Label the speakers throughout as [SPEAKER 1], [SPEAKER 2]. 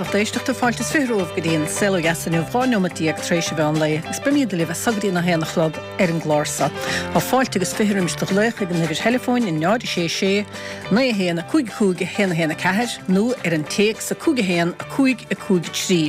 [SPEAKER 1] lucht éisteachta, fáilte is 20 romhaibh go dtí an Saol Ó Dheas inniu, 12 neomat tar éis an mheán lae, agus beimid libh as so go dtí an 1 a chlog ar an gclár so. Tá fáilte agus 20 roimis do ghlaoch ag an uimhir theileafóin 0 6 6 9 1 5 5 1 1 4 nó ar an téacs 5 1 5 5 3.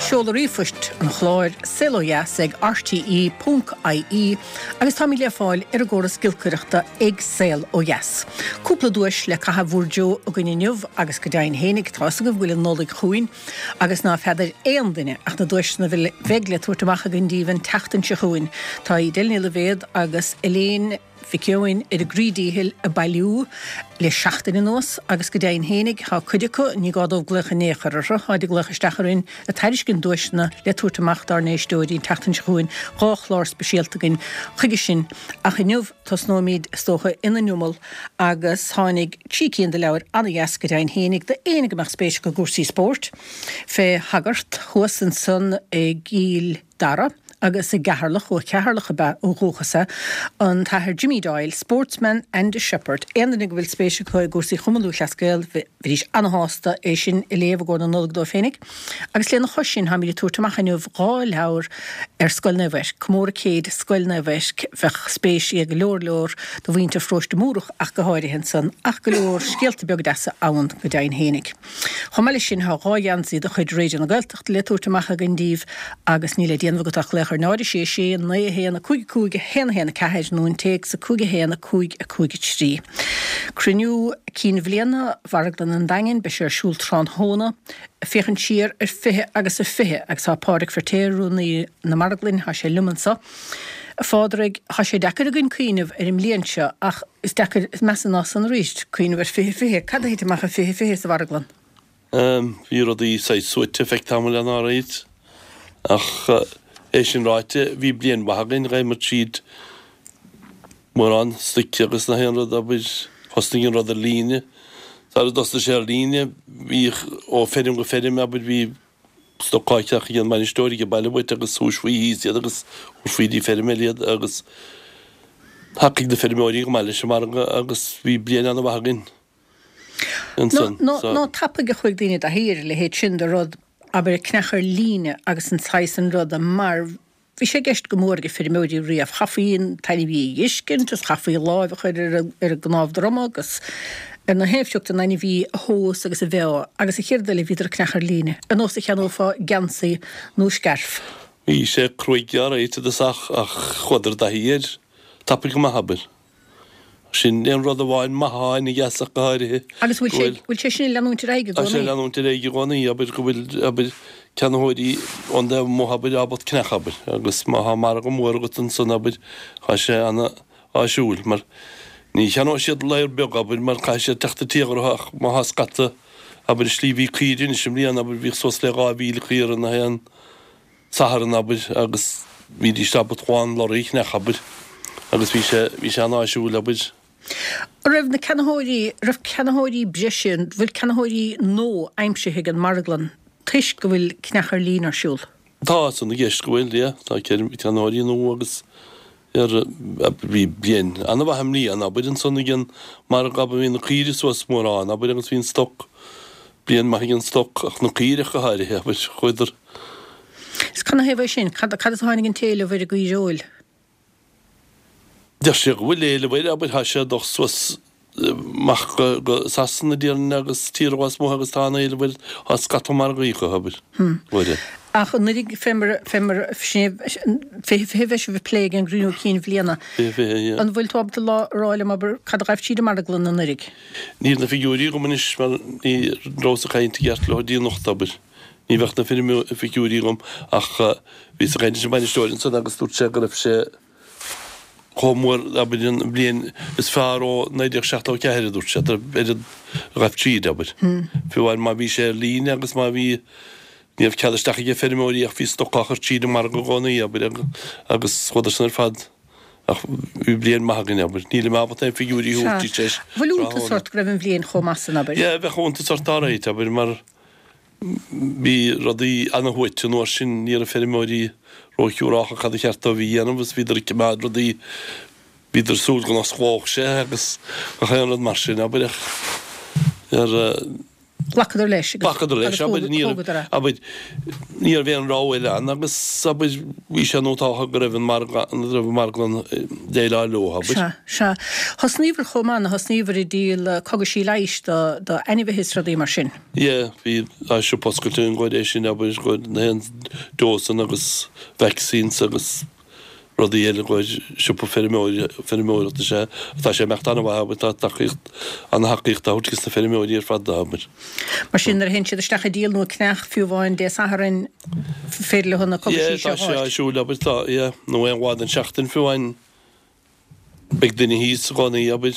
[SPEAKER 1] Seoladh ríomhphoist an chláir, saolodheas ag rte.ie. Agus táimid le fáil ar an gcóras giolcaireachta ag Saol Ó Dheas. Cúpla duais le caitheamh bhur dtreo againn inniu agus go deimhin fhéinig, tá fhios agaibh go bhfuil an Nollaig chugainn agus ná feadair aon duine ach na duaiseanna a bheidh le tabhairt amach againn díbh an tseachtain seo chugainn. Tá Edel Ní Loibhéad agus Elaine Mhic Eoin ar a gcroí díchill ag bailiú le seachtain anuas agus go deimhin fhéinig tá cuid acu, ní gá dóibh glaoch in aon chor orthu, táid ag glaoch isteach orainn ag tairiscint duaiseanna le tabhairt amach dár n-éisteoirí an tseachtain seo chugainn, 2 chlár speisialta againn chuige sin ach inniu tosnóimid is dócha ina n-iomall agus tháinig trí cinn de leabhair an-dheas go deimhin fhéinig d'éinne go mbeadh spéis acu i gcúrsaí spóirt fé shagart thuas ansan i gCill Dara agus i gCeatharlach, ó Cheatharlach ab ea ó dhúchas é, an tAthair Jimmy Doyle, Sportsman and a Shepherd. Aon duine go bhfuil spéis acu i gcúrsaí Chumann Lúthchleas Gael, bheidís ana-shásta é sin a léamh i gcomhair na Nollag dóibh féinig. Agus lena chois sin, táimid ag tabhairt amach inniu 2 leabhar ar Scoil Naomh Eirc, Comóradh Céid Scoil Naomh Eirc, bheadh spéis ag go leor leor de mhuintir Pharóiste Múrach ach go háirithe ansan, ach go leor scéalta beaga deasa ann go deimhin fhéinig. Chomh maith leis sin, tá 2 gheansaí de chuid Raidió na Gaeltachta le tabhairt amach againn díbh agus níl le déanamh agat ach glaoch ar 0 6 6 9 1 5 5 1 1 4 nó an téacs 5 1 5 5 3. Cruinniú Cinn Bhliana Mharglann an Daingin, beidh sé ar siúl tráthnóna, ag féachaint siar ar 20 agus a 20 agus tá Pádraig Feirtéar, Rúnaí na Marglainne, tá sé liom anseo. A Phádraig, tá sé deacair againn cuimhneamh ar an mbliain seo ach Is deacair, is measa ná san arís, cuimhneamh ar 2020. Cad a thit amach i 2020 sa mharglann?
[SPEAKER 2] Bhí rudaí saghas suaite feadh tamaill ann alright. Ach é sin ráite, bhí bliain mhaith againn, ghabhamar tríd mórán stoic agus na haon rud, abair, thosnaigh an rud ar líne. Sara dtosnaigh sé ar líne, bhíodh ó feirm go feirm, abair, bhí stoc á cheannach ag an mbainisteoir ag an baile uait agus thomhaisfí thíos iad agus thabharfaí dtí feirm eile iad agus thacaigh na feirmeoirí go maith leis an margadh agus bhí bliain an-mhaith againn
[SPEAKER 1] ansan. Nó, nó tapaidh a chuaigh daoine i dtaithí ar a leithéid sin de rud, abair, ceannach ar líne agus an saghas an ruda mar Bhí sé i gceist go mór ag feirmeoirí riamh. Chaithfí an t-ainmhí a dh'fheiscint agus chaithfí láimh a chur ar an gcnámh droma agus ar na haon phioc den ainmhí a thomhas agus a mheá agus an chéad rud eile bhíodar ag ceannach ar líne, ar nós a cheannófá geansaí nó scairf.
[SPEAKER 2] Bhí sé cruaidh alright i dtosach ach chuadar i dtaithí air tapaidh go maith, abair. Sin aon rud amháin maith atá ina dheas ach go háirithe.
[SPEAKER 1] Agus bhfuil sé, bhfuil sé sin ag leanúint ar aghaidh i
[SPEAKER 2] gcónaí? Tá sé ag leanúint ar aghaidh i gcónaí, abair, go bhfuil, abair, ceannaitheoirí ón dtaobh amuigh, abair, ábalta ceannach, abair, agus má thá margadh mór agat ansan, abair, tá sé ana-áisiúil, mar ní cheannóidh siad ladhar beag, abair, mar caithfidh siad teacht i dtír orthu ach má thá scata, abair, slí bhí caoirigh anois i mbliana, abair, bhíodh suas le 2,000 caora na haon. Satharn, abair, agus bhídís ábalta amháin lorry a cheannach, abair, agus bhí sé, bhí sé an-áisiúil, abair.
[SPEAKER 1] An raibh na ceannaitheoirí, raibh ceannaitheoirí breise, an bhfuil ceannaitheoirí nua aimsithe ag an marglann toisc go bhfuil ceannach ar líne ar siúl?
[SPEAKER 2] Tá san i gceist go bhfuil, yeah, tá ceannaitheoirí nua agus ar, bhí bliain an-mhaith i mbliana, abair, ansan ag an margadh, abair, bhí na caoirigh suas mórán, abair, agus bhí an stoc, bliain maith ag an stoc, ach na caoirigh ach go háirithe, abair, chuadar.
[SPEAKER 1] Is canathaobh é sin? Cad, cad as a tháinig an t-éileamh ar an gcaoireoil?
[SPEAKER 2] Deir sé go bhfuil éileamh air, abair, tá sé ag dul suas amach go Sasana, déarfainn, agus tíortha lasmuigh agus tá an-éileamh air, tá scata margaí acu, abair,
[SPEAKER 1] uair. Ach anuraidh, fé mar, fé mar, sin é, 20, 20 bheidh sibh ag plé ag an gcruinniú cinn bhliana.
[SPEAKER 2] 20, 20, yeah.
[SPEAKER 1] An bhfuil tú ábalta lá, a rá liom, abair, cad a ghaibh tríd an marglann anuraidh?
[SPEAKER 2] Níl na figiúirí agam anois mar ní rabhas ag caint i gceart leo go dtí anocht, abair. Ní bheadh na figiúirí agam ach bhíos ag caint leis an mbainisteoir ansan agus dúirt sé go raibh sé chomh mór, abair, an bhliain is fearr ó 1974, a dúirt sé, ar an ghaibh tríd, abair. Fiú amháin má bhí sé ar líne agus má bhí, ní raibh cead isteach ag feirmeoirí ach bhí stoc á chur tríd an margadh i gcónaí, abair, agus chuadar san ar fad. Ach bhí bliain maith againn, abair. Nílim ábalta aon figiúirí a thabhairt duit
[SPEAKER 1] tar éis Bhfuil iontas ort go raibh an bhliain chomh maith san, abair?
[SPEAKER 2] Yeah, bheadh iontas ort alright, abair, mar Bhí rudaí ana-shuaite an uair sin, ní raibh feirmeoirí ró-shiúrálta cad ba cheart dóibh a dhéanamh agus bhíodar ag coimeád rudaí, bhíodar ag súil go n-osclódh sé agus gach aon rud mar sin, abair, ach ar.
[SPEAKER 1] Ghlacadar leis
[SPEAKER 2] agus Ghlacadar leis, abair, ní raibh,
[SPEAKER 1] thógadar é.
[SPEAKER 2] abair, ní raibh aon rogha eile ann agus, abair, bhí sé nótáltha go raibh an margadh, go raibh an marglann ag déileáil leo, abair.
[SPEAKER 1] Sea, sea. Thosnaíobhair chomh maith, nó thosnaíobhair ag díol cogaisí leighis do, do ainmhithe is rudaí mar sin.
[SPEAKER 2] Yeah, bhí, tá siopa oscailte againn gcomhair é sin, abair, gcomhair na haon dósanna agus vaccines agus. rudaí eile i gcomhair siopa feirmeoireachta is ea tá sé ag imeacht an-mhaith, abair, tá tacaíocht, an-tacaíocht á thabhairt dos na feirmeoirí ar fad, abair.
[SPEAKER 1] Mar sin, nuair a théann siad isteach ag díol nó ag ceannach, fiú amháin Dé Sathairn, féidir leo na
[SPEAKER 2] cogaisí
[SPEAKER 1] seo a
[SPEAKER 2] Yeah, tá sé
[SPEAKER 1] fháilt.
[SPEAKER 2] ar siúl, abair, tá, yeah, nó aon lá den seachtain fiú amháin. Beidh duine thíos i gcónaí, abair,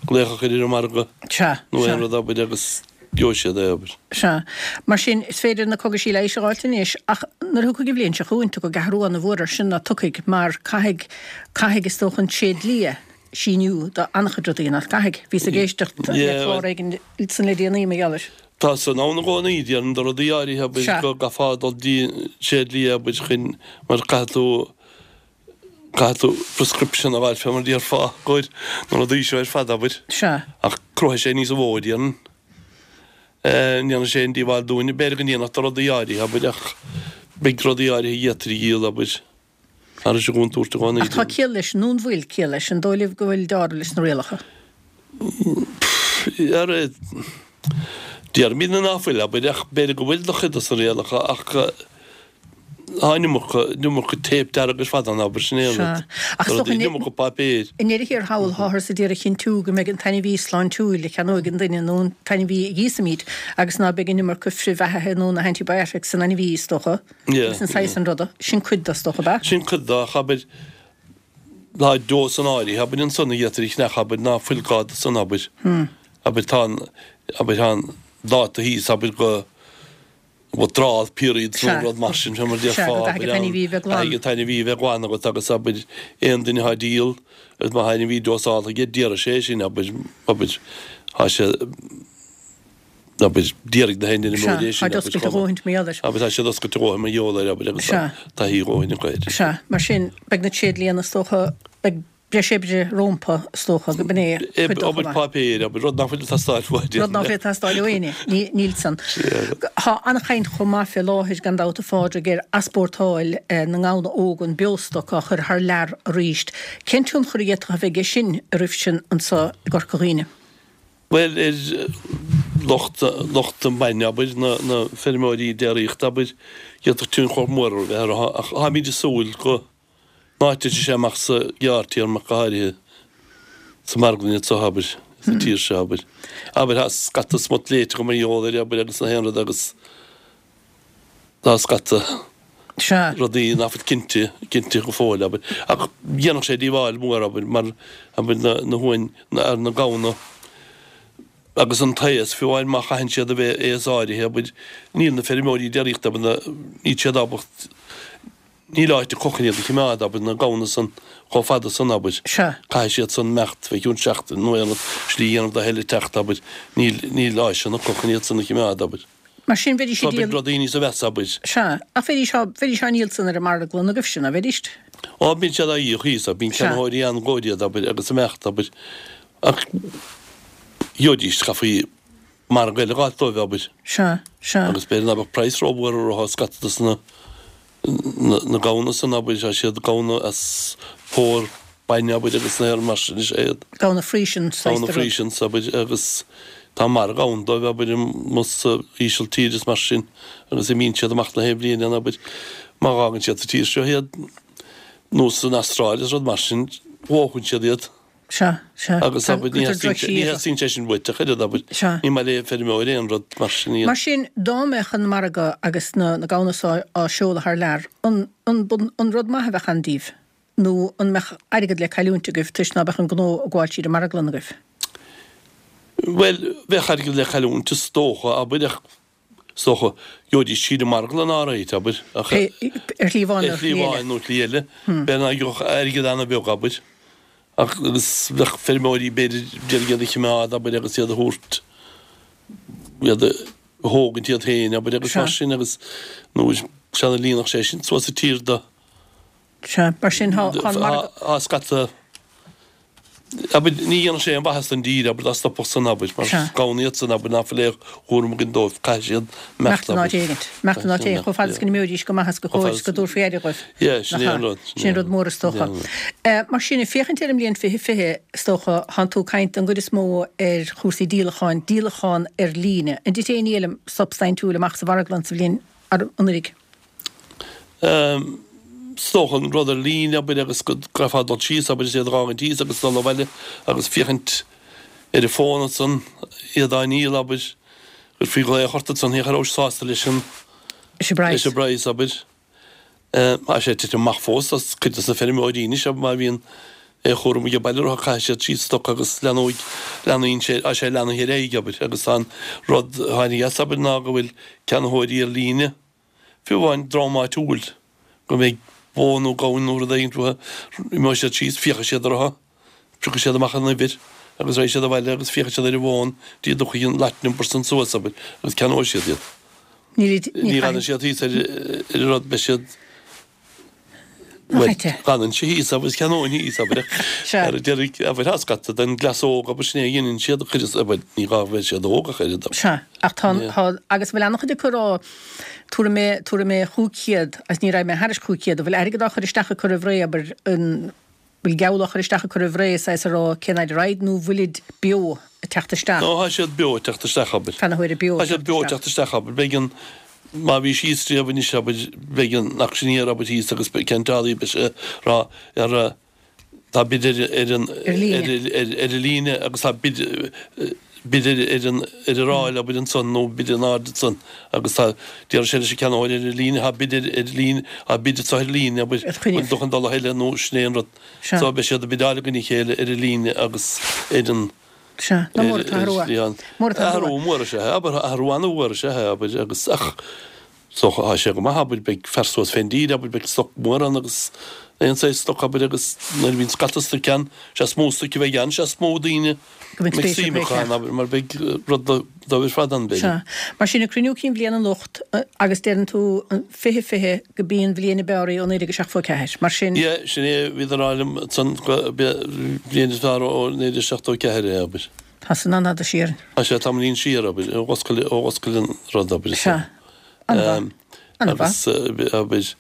[SPEAKER 2] glaoch a chur ar an margadh
[SPEAKER 1] Sea,
[SPEAKER 2] nó
[SPEAKER 1] sea.
[SPEAKER 2] aon rud, abair, agus gheobhaidh siad é, abair.
[SPEAKER 1] Sea. Mar sin, is féidir na cogaisí leighis a dh'fháilt anois, ach nuair a thiocfaidh an bhliain seo chugainn, tiocfaidh athrú ana-mhór air sin, ná tiocfaidh, mar caithfidh, caithfidh, is dócha, an tréidlia síniú do an-chuid rudaí, nach gcaithfidh? Bhíos ag éisteacht le
[SPEAKER 2] Yeah,
[SPEAKER 1] clár éigin san le déanaí, mar gheall air.
[SPEAKER 2] Tá san ann i gcónaí, déarfainn, do rudaí áirithe, abair,
[SPEAKER 1] Sea.
[SPEAKER 2] go gcaithfeá dul dtí an tréidlia, abair, chun, mar caithfidh tú, Caithfidh tú prescription a fháil fé mar a déarfá i gcomhair na rudaí seo ar fad, abair.
[SPEAKER 1] Sea.
[SPEAKER 2] Ach cruthóidh sé níos mó, déarfainn. Ní dhéanfaidh sé aon díobháil dúinn. B'fhéidir go ndéanfadh do rudaí áirithe, abair, ach beidh rudaí áirithe a d'fhéadfaí a dhíol, abair, thar an gcontúirt i gcónaí.
[SPEAKER 1] Ach tá ciall leis, nó an bhfuil ciall leis? An dóigh libh go bhfuil deáramh leis na rialacha?
[SPEAKER 2] Ara, déarfaimid ná fuil, abair, ach b'fhéidir go bhfuil do chuid dos na rialacha, ach tá an iomarca, an iomarca téip dearg ar fad ann, abair, sin é an rud.
[SPEAKER 1] Sea. Ach is dócha,
[SPEAKER 2] An iomarca páipéir.
[SPEAKER 1] i ndeireadh thiar thall, táthar ag iarraidh a chinntiú go mbeidh an t-ainmhí sláintiúil a cheannóidh an duine nó an t-ainmhí a dhíosfaimid agus ná beidh an iomarca frithbheathaithe nó na antibiotics san ainmhí, is dócha,
[SPEAKER 2] Yeah,
[SPEAKER 1] agus an saghas
[SPEAKER 2] yeah.
[SPEAKER 1] san ruda. Sin cuid de, is dócha, ab ea?
[SPEAKER 2] Sin cuid de, ach abair, Tá dósanna áirithe, abair, ansan a d'fhéadfaí a cheannach, abair, ná fuil gá do san, abair. Abair, tá an, abair, tá an dáta thíos, abair, go withdrawal period nó
[SPEAKER 1] Sea.
[SPEAKER 2] rud mar sin, fé mar a
[SPEAKER 1] Sea,
[SPEAKER 2] déarfá,
[SPEAKER 1] go
[SPEAKER 2] abair,
[SPEAKER 1] gcaithfidh an t-ainmhí a bheith glan.
[SPEAKER 2] Caithfidh an t-ainmhí a bheith glan agat agus, abair, aon duine atá ag díol agus má tá ainmhí dósáltha aige, déarfaidh sé é sin, abair, abair, tá sé, abair, déarfaidh na haon duine
[SPEAKER 1] Sea,
[SPEAKER 2] mór é sin,
[SPEAKER 1] táid
[SPEAKER 2] abair,
[SPEAKER 1] oscailte a dhóthaint mar gheall air.
[SPEAKER 2] Abair, tá siad oscailte a dhóthain mar gheall air, abair, agus
[SPEAKER 1] Sea.
[SPEAKER 2] tá taithí a dhóthain acu air.
[SPEAKER 1] Sea, mar sin, beidh na tréidlianna, is dócha, beidh breis oibre rómpa, is dócha, go b'in é cuid dó chomh
[SPEAKER 2] Obair
[SPEAKER 1] maith.
[SPEAKER 2] páipéir, abair, rud nach bhfuil ag teastáil uait.
[SPEAKER 1] Rud nach bhfuil ag teastáil ó éinne, níl san.
[SPEAKER 2] Sea.
[SPEAKER 1] Tá an-chaint chomh maith fé láthair, gan dabht, a Phádraig, ar easpórtáil na ngamhna óga, an beostoc á chur thar lear arís. Cén tionchar a d'fhéadfadh a bheith aige sin oraibhse anso i gCorca Dhuibhne?
[SPEAKER 2] Bhuel, ar lucht, lucht an bhainne, abair, na, na feirmeoirí déiríochta, abair, d'fhéadfadh tionchar mór a bheith orthu, ach táimid ag súil go n-áiteoidh sé amach sa ghearrtéarma ach go háirithe sa marglann anseo, abair, sa tír seo, abair. Abair, tá scata smut léite agam mar gheall air, abair, agus na haon rud agus tá scata
[SPEAKER 1] Sea.
[SPEAKER 2] rudaí nach bhfuil cinnte, cinnte go fóill, abair. Ach dhéanfadh sé díobháil mhór, abair, mar, abair, na, na huain, na, ar na gamhna agus an taos, fiú amháin má chaitheann siad a bheith aos áirithe, abair, níl na feirmeoirí déiríochta, abair, na, níl siad ábalta, níl áit acu chun iad a chimeád, abair, na gamhna san chomh fada san, abair.
[SPEAKER 1] Sea.
[SPEAKER 2] Caithfidh siad san imeacht fé chionn seachtain nó aon rud, slí a dhéanamh do a thuilleadh teacht, abair, níl, níl áiseanna acu chun iad san a chimeád, abair.
[SPEAKER 1] Mar sin, bheidís
[SPEAKER 2] Tá
[SPEAKER 1] ag
[SPEAKER 2] beidh
[SPEAKER 1] díol.
[SPEAKER 2] rudaí níos mheasa, abair.
[SPEAKER 1] Sea, ach bheidís á, bheidís á ndíol san ar an marglann agaibhse, ná bheidís?
[SPEAKER 2] Á, bíonn siad á dhíol thíos, abair, bíonn
[SPEAKER 1] Sea.
[SPEAKER 2] ceannaitheoirí ann i gcomhair iad, abair, agus imeacht, abair. Ach gheobhaidís, chaithfí margadh eile a dh'fháilt dóibh, abair.
[SPEAKER 1] Sea, sea.
[SPEAKER 2] Agus b'fhéidir ná beadh praghas rómhór orthu, scata dos na, na gamhna san, abair, tá siad gamhna as pór bainne, abair, agus na mar sin is ea iad.
[SPEAKER 1] Gamhna Friesian saghas
[SPEAKER 2] Gamhna
[SPEAKER 1] de rud.
[SPEAKER 2] Friesians, abair, agus tá margadh ann dóibh, abair, amuigh sa Ísiltír is mar sin, agus imíonn siad amach na haon bhliain ann, abair, má dh'fhágann siad sa tír seo iad, nó san Astráil is rud mar sin, dhófann siad iad.
[SPEAKER 1] Sea, sea.
[SPEAKER 2] Agus
[SPEAKER 1] Tá,
[SPEAKER 2] abair, ní
[SPEAKER 1] cuirtear
[SPEAKER 2] theastaíonn sé, ní
[SPEAKER 1] drochshaothar.
[SPEAKER 2] theastaíonn sé sin uait ach oiread, abair.
[SPEAKER 1] Sea.
[SPEAKER 2] Ní maith le feirmeoir aon rud mar sin a dhéanamh.
[SPEAKER 1] Mar sin, dá mbeadh an margadh agus na, na gamhna so á seoladh thar lear, an, an, an rud maith a bheadh ann daoibh? Nó an mbeadh airgead le cailliúint agaibh toisc ná beadh an gnó ag gabháil tríd an marglann agaibh?
[SPEAKER 2] Bhuel, bheadh airgead le cailliúint is dócha, abair, ach Is dócha, gheobhaidís tríd an marglann alright, abair, ach.
[SPEAKER 1] Ar shlí amháin
[SPEAKER 2] nó shlí eile. Ar shlí amháin nó shlí eile. B'fhéidir nach gheobhadh airgead an-bheag, abair. Ach, agus bheadh feirmeoirí, b'fhéidir, d'iarraidh iad a chimeád, abair, agus iad a thabhairt, iad a thógaint iad féin, abair, agus mar sin, agus nó sea, líonfadh sé sin suas an tír do.
[SPEAKER 1] Sea, mar sin, tá an margadh.
[SPEAKER 2] Tá scata. Abair, ní dhéanfadh sé aon mhaitheas don dtír, abair, dá stopfadh san, abair, mar
[SPEAKER 1] Sea.
[SPEAKER 2] gamhna iad san, abair, ná fuil aon chúram againn dóibh, caithfidh siad
[SPEAKER 1] imeacht,
[SPEAKER 2] imeacht in
[SPEAKER 1] áit
[SPEAKER 2] abair.
[SPEAKER 1] éigint, imeacht in áit éigint, chomh fada is go n-imeoidís go maith is go
[SPEAKER 2] Chomh
[SPEAKER 1] cóir
[SPEAKER 2] fada
[SPEAKER 1] is go
[SPEAKER 2] is,
[SPEAKER 1] dtabharfaí aire dhóibh.
[SPEAKER 2] yeah, sin
[SPEAKER 1] Nach
[SPEAKER 2] é an
[SPEAKER 1] ea?
[SPEAKER 2] rud,
[SPEAKER 1] Sin é an rud mór is
[SPEAKER 2] sin é
[SPEAKER 1] dócha.
[SPEAKER 2] an rud.
[SPEAKER 1] Mar sin, ag féachaint ar an mbliain 2020, is dócha, thánn tú ag caint don gcuid is mó ar chúrsaí díolacháin, díolachán ar líne. An dtit aon díolaim substaintiúil amach sa mharglann sa bhliain anuraidh?
[SPEAKER 2] Is dócha an rud ar líne, abair, agus go gcaithfeá dul síos, abair, is iad a dh'fhágaint thíos agus dul abhaile agus féachaint ar an bhfón ansan, iad á ndíol, abair, chuirfí glaoch ort ansan, féach an rabhais sásta leis an,
[SPEAKER 1] leis an bpraghas.
[SPEAKER 2] leis an bpraghas, abair. Tá sé ag titim amach fós, tá cuid dos na feirmeoirí anois, abair, má bhíonn aon chúram age baile orthu, caithfidh siad síos stoc agus leanóidh, leanaíonn sé, tá sé leanaithe ar aghaidh, abair, agus tá an rud a tháinig as, abair, ná go bhfuil ceannaitheoirí ar líne, Fiú amháin dream áitiúil, go mbeidh bó nó gamhain nó rud éigin uathu, imeoidh siad síos, féachfaidh siad orthu, piocfaidh siad amach an uimhir agus raghaidh siad abhaile agus féachfaidh siad ar an bhfón dtí a dtiocfaidh an lot number san suas, abair, agus ceannóidh siad iad.
[SPEAKER 1] Ní
[SPEAKER 2] Ní fhanann siad thíos ar an rud, beidh siad.
[SPEAKER 1] Nach ait é?
[SPEAKER 2] Fanann sé thíos agus ceannóinn thíos, abair,
[SPEAKER 1] Sea.
[SPEAKER 2] ar deireadh, abair, tá scata den gcleas óg, abair, sin é a dheineann siad, cuid is, abair, ní gá go mbeidh siad óg ach oiread, abair.
[SPEAKER 1] Sea, ach tá,
[SPEAKER 2] Yeah.
[SPEAKER 1] tá, agus bhfuil an-chuid acu ag rá, tabharfaidh mé, tabharfaidh mé 500, agus ní raghaidh mé thairis 500, an bhfuil airgead á chur isteach acu roimh ré, abair, an bhfuil geall á chur isteach acu roimh ré, saghas a rá cén fhaid a raghaid, nó bhfuilid beo ag teacht isteach?
[SPEAKER 2] No, tá siad beo ag teacht isteach, abair.
[SPEAKER 1] Ceannaitheoirí beo
[SPEAKER 2] Tá
[SPEAKER 1] ag
[SPEAKER 2] siad
[SPEAKER 1] teacht
[SPEAKER 2] beo ag
[SPEAKER 1] isteach.
[SPEAKER 2] teacht isteach, abair. Beidh an, má bhí síos riamh anois, abair, beidh an auctioneer, abair, thíos agus beidh ceantálaí, beidh sé ag rá ar, tá bid ar, ar an,
[SPEAKER 1] Ar líne.
[SPEAKER 2] ar, ar, ar an líne agus tá bid, bid ar, ar an, ar an ráil, abair, ansan nó bid in airde ansan agus tá, déarfaidh sé leis an ceannaitheoir ar an líne, tá bid ar, ar líne, tá bid anseo ar líne, abair,
[SPEAKER 1] Ar choinne.
[SPEAKER 2] bhfuil tú chun dul a thuilleadh nó sin é an rud.
[SPEAKER 1] Sea.
[SPEAKER 2] So beidh siad ag bideáil i gcoinne a chéile ar an líne agus ar an,
[SPEAKER 1] Sea, ná mór atá athrú. Mór atá
[SPEAKER 2] athrú mór is ea é, abair, athrú an-mhór is ea é, abair, agus, ach, is dócha, tá sé go maith, abair, beidh fear suas fén dtír, abair, beidh stoc mór ann agus aon saghas stoc, abair, agus nuair a bhíonn scata stoic ann, sé is mó stoic a bheidh ann, sé is mó daoine
[SPEAKER 1] Go mbeidh
[SPEAKER 2] mbeidh
[SPEAKER 1] spéis
[SPEAKER 2] suim
[SPEAKER 1] acu
[SPEAKER 2] acu ann, abair, mar beidh rud dóibh ar fad ann, b'fhéidir.
[SPEAKER 1] Sea. Mar sin, ag cruinniú cinn bhliana anocht, agus deireann tú an 20 20 go b'í an bhliain ab fhearr í ó 1974. Mar sin.
[SPEAKER 2] Yeah, sin é, bhíodar a rá liom ansan go b'é an bhliain is fearr ó 1974 é, abair.
[SPEAKER 1] Tá san an-fhada siar.
[SPEAKER 2] Tá sé tamaillín siar, abair, ó dh'oscail, ó dh'oscail an rud, abair.
[SPEAKER 1] Sea. An-mhaith. An-mhaith.
[SPEAKER 2] Agus, abair,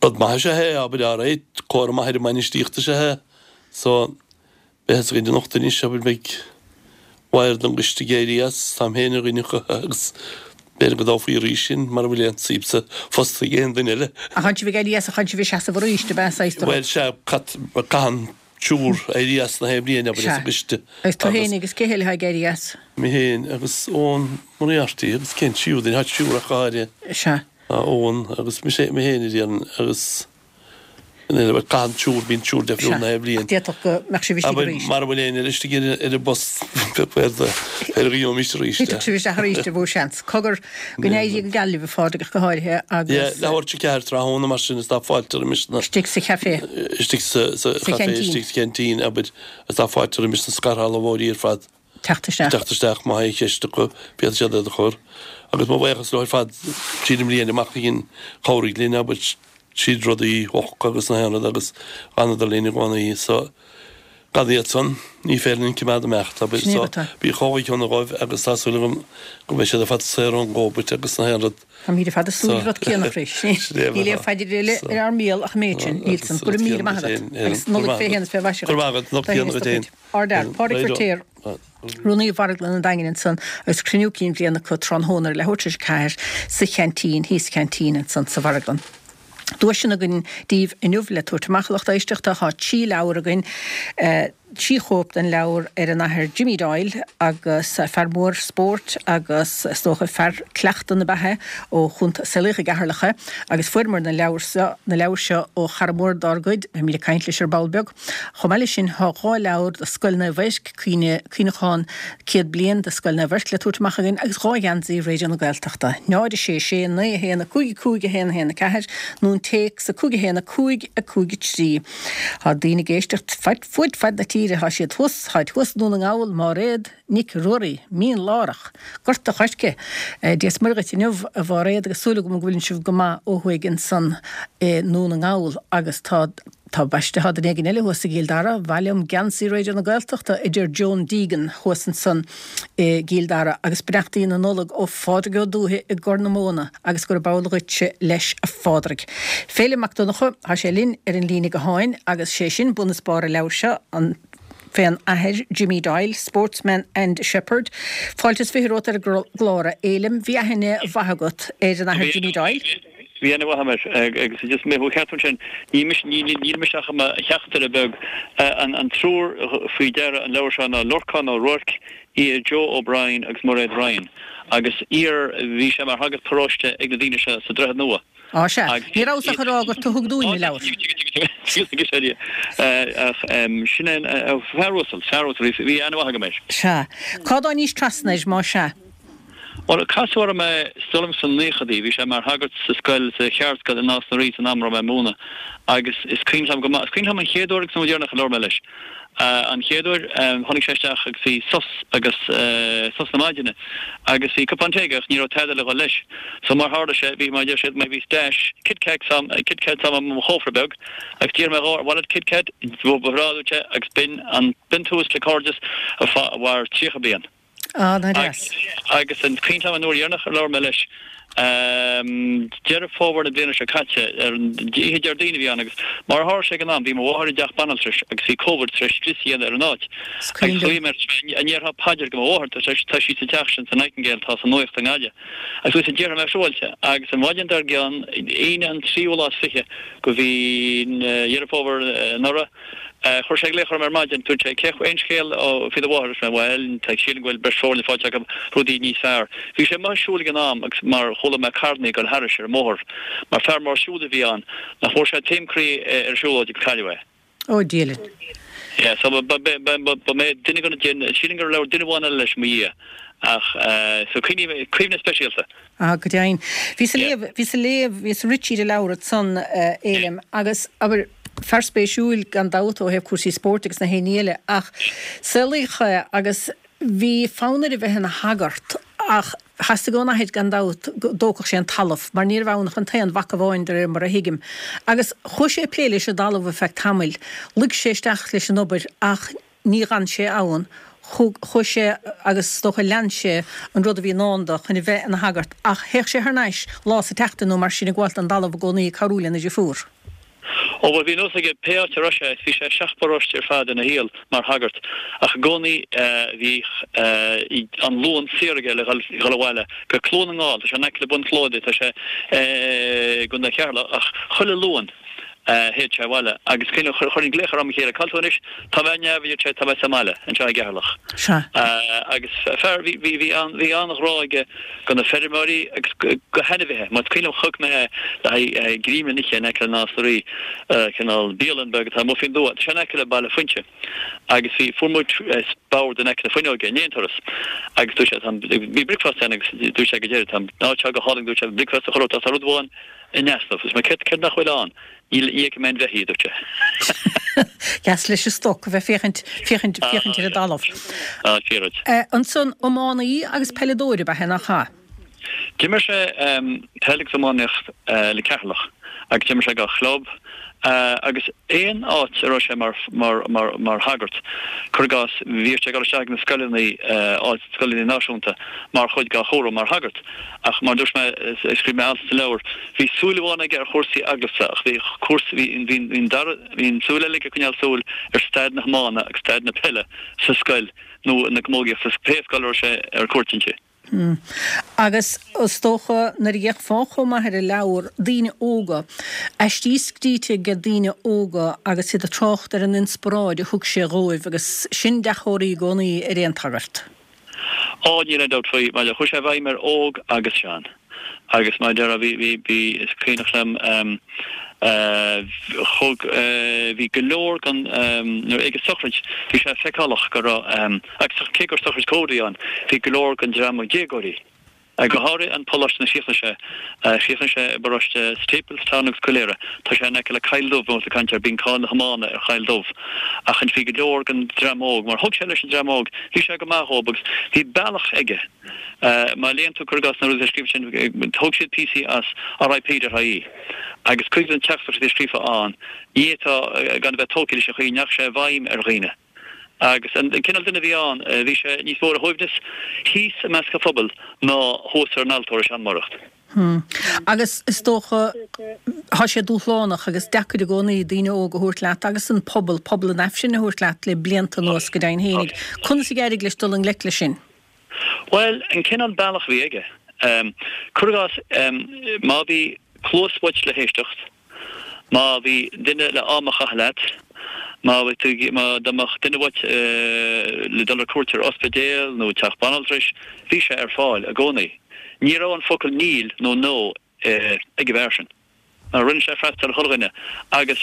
[SPEAKER 2] rud maith is ea é, abair, alright, comhartha maith ar an mbainistíocht is ea é. So, Beidh a fhios againn anocht anois, abair, beidh bord an gcoiste ag éirí as, táim féin ar dhuine acu agus b'fhéidir go dtoghfaí arís sinn mara bhfuil aon suim sa phost ag aon duine eile.
[SPEAKER 1] Ach tánn sibh ag éirí as ach tánn sibh ag seasamh arís, ab ea, saghas de rud?
[SPEAKER 2] Bhuel, sea, caitheann triúr éirí as na haon bhliain, abair,
[SPEAKER 1] Sea.
[SPEAKER 2] as an gcoiste
[SPEAKER 1] Agus tú
[SPEAKER 2] agus.
[SPEAKER 1] féin agus cé eile atá ag éirí as?
[SPEAKER 2] Mé féin agus Eoin Moriarty agus cén tríú duine, tá triúr ach go háirithe.
[SPEAKER 1] Sea.
[SPEAKER 2] Tá Eoin agus mise, mé féin a déarfainn agus. Caitheann triúr, bíonn triúr difriúil na haon bhliain.
[SPEAKER 1] Ach d'fhéadfadh go mbeadh sibh istigh
[SPEAKER 2] Abair,
[SPEAKER 1] arís.
[SPEAKER 2] mara bhfuil éinne eile istigh ar an bpost, b'fhéidir go gheobhaimis arís é.
[SPEAKER 1] Thitfeadh sibh isteach arís ar mhó seans. Cogar, go n-éirí go geal libh, a Phádraig, ach go háirithe, agus.
[SPEAKER 2] Yeah, leathuair tar éis a 4 tráthnóna mar sin is tá fáilte roimis na.
[SPEAKER 1] Istigh sa chafé.
[SPEAKER 2] Istigh sa
[SPEAKER 1] Sa
[SPEAKER 2] chafé, istigh sa cheaintín, abair, is tá fáilte roimis na scairshealbhóirí ar fad.
[SPEAKER 1] Teacht isteach.
[SPEAKER 2] Teacht isteach, má tá aon cheist acu, féadfaidh siad iad a chur. Agus mo bhuíochas leo ar fad tríd an mbliain amach a dhein, chabhraigh linn, abair, tríd rudaí a agus na haon rud agus d'fhanadar linn i gcónaí. So, gan iad san, ní féidir linn coimeád imeacht, abair.
[SPEAKER 1] Sin é
[SPEAKER 2] So,
[SPEAKER 1] rud é.
[SPEAKER 2] bí chomh shona dhóibh agus tá súil agam go mbeidh siad ar fad saor ón gCóbait agus na haon rud.
[SPEAKER 1] Táimid ar fad ag súil le rud céanna, a Chris. Níl aon phaidir eile ar ár mbéal ach an méid sin. Níl san. Go raibh míle maith agat. Agus Nollaig fé shéan is fé mhaise
[SPEAKER 2] Go raibh maith agat. Nollaig chéanna duit féin.
[SPEAKER 1] Ardfhear, Pádraig Feiritéar, Rúnaí Mharglann an Daingin ansan agus cruinniú cinn bhliana acu tráthnóna ar leathuair tar éis a 4 sa cheaintín, thíos sa cheaintín ansan sa mharglann. Duaiseanna againn daoibh inniu le tabhairt amach, a lucht éisteachta. Tá 3 leabhar againn, 3 chóip den leabhar ar an Athair Jimmy Doyle agus fear mór spóirt agus is dócha fear cleachta na beatha ó Chontae Sligeach i gCeatharlach é agus fuaireamar na leabhair seo, na leabhair seo ó chara mór dár gcuid, beimid ag caint leis ar ball beag. Chomh maith leis sin, tá 2 leabhar do Scoil Naomh Eirc, Cuimhneachán 100 Bliain de Scoil Naomh Eirc le tabhairt amach againn agus 2 gheansaí Raidió na Gaeltachta, 0 6 6 9 1 5 5 1 1 4 nó an téacs 5 1 5 5 3. Tá daoine ag éisteacht fud fad na tíre, tá siad thuas, táid thuas i nDún na nGall, Máiréad Nic Ruairí, Mín Lárach, Gort a' Choirce. Dia is Muire dhuit inniu, a Mháiréad, agus súil agam go bhfuileann sibh go maith ó thuaidh ansan i nDún na nGall agus tá. Tá baiste, tá duine éigin eile thuas i gCill Dara, Mhaith liom geansaí Raidió na Gaeltachta, a deir Joan Deegan thuas ansan i gCill Dara, agus beannachtaí na Nollag ó Phádraig Ó Dúiche i gCorr na Móna agus gurb amhlaidh dhuitse leis a Phádraig. Féilim Mac Donncha, tá sé linn ar an líne gutháin agus sé sin bun is barr an leabhair seo, an fén athair Jimmy Doyle, Sportsman and Shepherd. Fáilte is 20 romhat ar an gclár, a Fhéilim. Bhí aithne mhaith agat ar an athair Jimmy Doyle?
[SPEAKER 3] Bhí aithne mhaith agam air agus just mé thú a cheartú ansin, níl mise, níl mise ach i mo theachtaire beag. An triúr faoi deara an leabhar seo ná Lorcán Ó Ruairc, Joe O'Brien agus Mairéad Ryan agus iar, bhí sé mar shagart paróiste ag na daoine seo sa Droichead Nua.
[SPEAKER 1] Á sea, ní rabhas ach ag rá gur tú a thug dúinn an leabhar.
[SPEAKER 3] Ach sin é an fear uasal, fear uasal, bhí aithne mhaith agam air.
[SPEAKER 1] Sea. Cá dtáinís trasna air, más ea?
[SPEAKER 3] Bhuel, casadh orm é, is dóigh liom sna naochadaí, bhí sé mar shagart sa scoil, sa cheardscoil i Nás na Rí san am a raibh mé ag múineadh agus is cuimhin liom go maith, is cuimhin liom an chéad uair agus an uair dheireanach a labhair mé leis. An chéad uair, tháinig sé isteach agus bhí sos agus sos na maidine agus bhí cupán tae aige ach ní raibh tada le dhul leis. So mar tharla sé, bhí, mar a deir siad, bhí stash Kit Kats a'm, Kit Kats a'm i mo chófra beag agus d'iarr mé dhó, ar mhaith leat Kit Kat? Ba bhreá, a dúirt sé, agus b'in an, b'in tús le cairdeas a mhair 30 bliain.
[SPEAKER 1] Ah, nach deas.
[SPEAKER 3] Agus is cuimhin liom an uair dheireanach ar labhair mé leis, Deireadh Fómhair na bliana seo caite, ar an oíche Déardaoin a bhí ann agus mar a tharla sé ag an am, bhí mo mháthair i dteach banaltrais agus bhí Covid tar éis scrios a dhéanamh ar an áit.
[SPEAKER 1] Is cuimhin
[SPEAKER 3] Agus
[SPEAKER 1] liom.
[SPEAKER 3] ghlaoigh mé air, an ndéarfá paidir do mo mháthair, tá tá sí sa teach sin sa Nightingale atá sa nuaíocht i nGaillimh. Agus dúirt sé, déarfaidh mé siúráilte. Agus an mhaidin dár gcionn, Aoine an tríú lá is fiche de mhí Dheireadh Fómhair anuraidh, Chuir sé glaoch orm ar maidin, dúirt sé, cé, aon scéal faoi do mháthair? Dúirt mé, bhuel, tá, sílim go bhfuil breis foirne faighte acu, rudaí níos fearr. Bhí sé amuigh ag siúl ag an am agus mar chuala mé carrannaí ag dul thairis ar an mbóthar, mar fear mór siúil a bhí ann, nach bhfuair sé taom croí ar an siúlóid agus cailleadh é.
[SPEAKER 1] Ó, Dia linn.
[SPEAKER 3] Yeah, so ba, ba, ba, ba, ba mé duine de na, sílim gur labhair duine amháin eile leis i mo dhiaidh ach, so cuimhne, cuimhne speisialta.
[SPEAKER 1] Ah, go deimhin. Bhíos ag léamh, bhíos ag léamh, bhíos ag rith tríd an leabhar ansan, a Fhéilim, agus, abair, fear spéisiúil gan dabht ó thaobh cúrsaí spóirt agus na haon ní eile, ach saolaíodh é agus bhí fonn air a bheith ina shagart ach theastaigh ón athair gan dabht go dtógfadh sé an talamh mar ní raibh ann ach an t-aon mhac amháin de réir mar a thuigim. Agus chuaigh sé ag plé leis an dtalamh ar feadh tamaill, luigh sé isteach leis an obair ach Ní dh'fhan sé ann. Chuaigh sé agus is dócha lean sé an rud a bhí i ndán dó chun a bheith ina shagart ach théadh sé thar n-ais lá sa tseachtain nó mar sin ag gabháilt don dtalamh i gcónaí ag cabhrú lena dhriofúr.
[SPEAKER 3] Ó bhuel bhí nós aige pé áit a raibh sé, bhí sé i seacht bparóiste ar fad ina shaol mar shagart ach i gcónaí bhíodh an Luan saor aige le dhul abhaile go Cluain na nGall, tá sé in aice le Bun Shloda, tá sé i gContae Cheatharlach ach chuile Luan. Théadh sé abhaile agus chuirfinn glaoch air am chéile, Cá bhfuil tú anois? Tá mé ar neamh, a deir sé, tá mé sa mbaile, anseo i gCeatharlach.
[SPEAKER 1] Sea.
[SPEAKER 3] Agus fear, bhí, bhí, bhí an, bhí an-ghrá aige do na feirmeoirí agus go hainmhithe. Mar is cuimhin liom chonaic mé é le haghaidh greim le n-ithe in aice le Nás na Rí, cineál bialann beag atá amuigh faoin dtuath. Tá sé in aice le Baile Fuinse. Agus bhí, fuair muid bord in aice na fuinneoige i ndiaidh an turas. Agus dúirt sé, tá an, bhí bricfeasta ann agus dúirt sé go deireadh, tá an áit seo go hálainn, dúirt sé, bricfeasta a chur ort ach tá rud amháin, In easnamh. Is mé céard, céard nach bhfuil ann? Níl, ní fheicim aon bheithígh, a dúirt sé.
[SPEAKER 1] Deas leis an stoc a bheith féachaint, féachaint, féachaint ar an dtalamh.
[SPEAKER 3] Ah, fíor-rud.
[SPEAKER 1] Ansan, iománaí agus peileadóir ab ea é, nach ea?
[SPEAKER 3] D'imir sé peil agus iománaíocht le Ceatharlach agus d'imir sé dhá chlub agus aon áit a raibh sé mar, mar, mar, mar shagart, cuir i gcás, bhíodh sé ag dul isteach ag na scoileanna, áit, scoileanna náisiúnta mar chuid dá chúram mar shagart. Ach mar a dúirt mé, scríobh mé alt sa leabhar, bhí súil amháin aige ar chúrsaí eaglasta ach bhí cúrsaí, bhí, bhí, bhí an dara, bhí an tsúil eile aige ag coinneáil súil ar staid na hiomána agus staid na peile sa scoil nó na camógaíochta, pé scoil a raibh sé ar cuairt inti.
[SPEAKER 1] Agus is dócha nuair a d'fhéachfá chomh maith ar an leabhar, daoine óga, aistí scríte ag daoine óga agus iad ag trácht ar an inspioráid a thug sé dhóibh agus sin dea-chomhartha i gcónaí ar aon tsagart.
[SPEAKER 3] Á, níl aon dabht faoi, mar chuaigh sé i bhfeidhm ar óg agus sean. Agus mar a déarfá, bhí, bhí, bhí, is cuimhneach liom, thug, bhí go leor den, nuair, ag an sochraid, bhí sé feiceálach go raibh, agus cé gur sochraid Covid a bhí ann, bhí go leor den dream déagóirí. Go háirithe an poláiste ina chríochnaigh sé. Chríochnaigh sé i bparóiste Staplestown agus Coill Éire. Tá sé in aice le Coill Dubh, bhí muid ag caint air, bíonn cáil na hiomána ar Choill Dubh. Ach bhí go leor den dream óg, mar thug sé leis an dream óg, bhí sé go maith dhóib agus bhí bealach aige. Má léann tú, cuir i gcás, na rudaí atá scríofa sin, thóg siad píosaí as RIP.ie agus cuid de na teachtaireachtaí a bhí scríofa ann, ní fhéadfá gan a bheith tógtha leis an chaoi a ndeachaigh sé i bhfeidhm ar dhaoine. Agus an cineál duine a bhí ann, bhí sé níos mó ar a shuaimhneas thíos i measc an phobail ná thuas ar an altóir ag seanmóireacht.
[SPEAKER 1] Hmm. Agus is dócha, tá sé dúshlánach agus deacair i gcónaí daoine óga a thabhairt leat agus an pobal, pobal an Aifrinn a thabhairt leat le blianta anuas go deimhin fhéinig. Conas a d'éirigh leis dul i ngleic leis sin?
[SPEAKER 3] Bhuel, an cineál bealach a bhí aige. Cuir i gcás, má bhí cluas uait le héisteacht, Má bhí duine le am a chaitheamh leat, má bhí tú, má, dá mbeadh duine uait le dul ar cuairt ar ospidéal nó teach banaltrais, bhí sé ar fáil i gcónaí. Ní raibh an focal níl nó no ag an bhfear sin. Mar rinne sé freastal ar chuile dhuine agus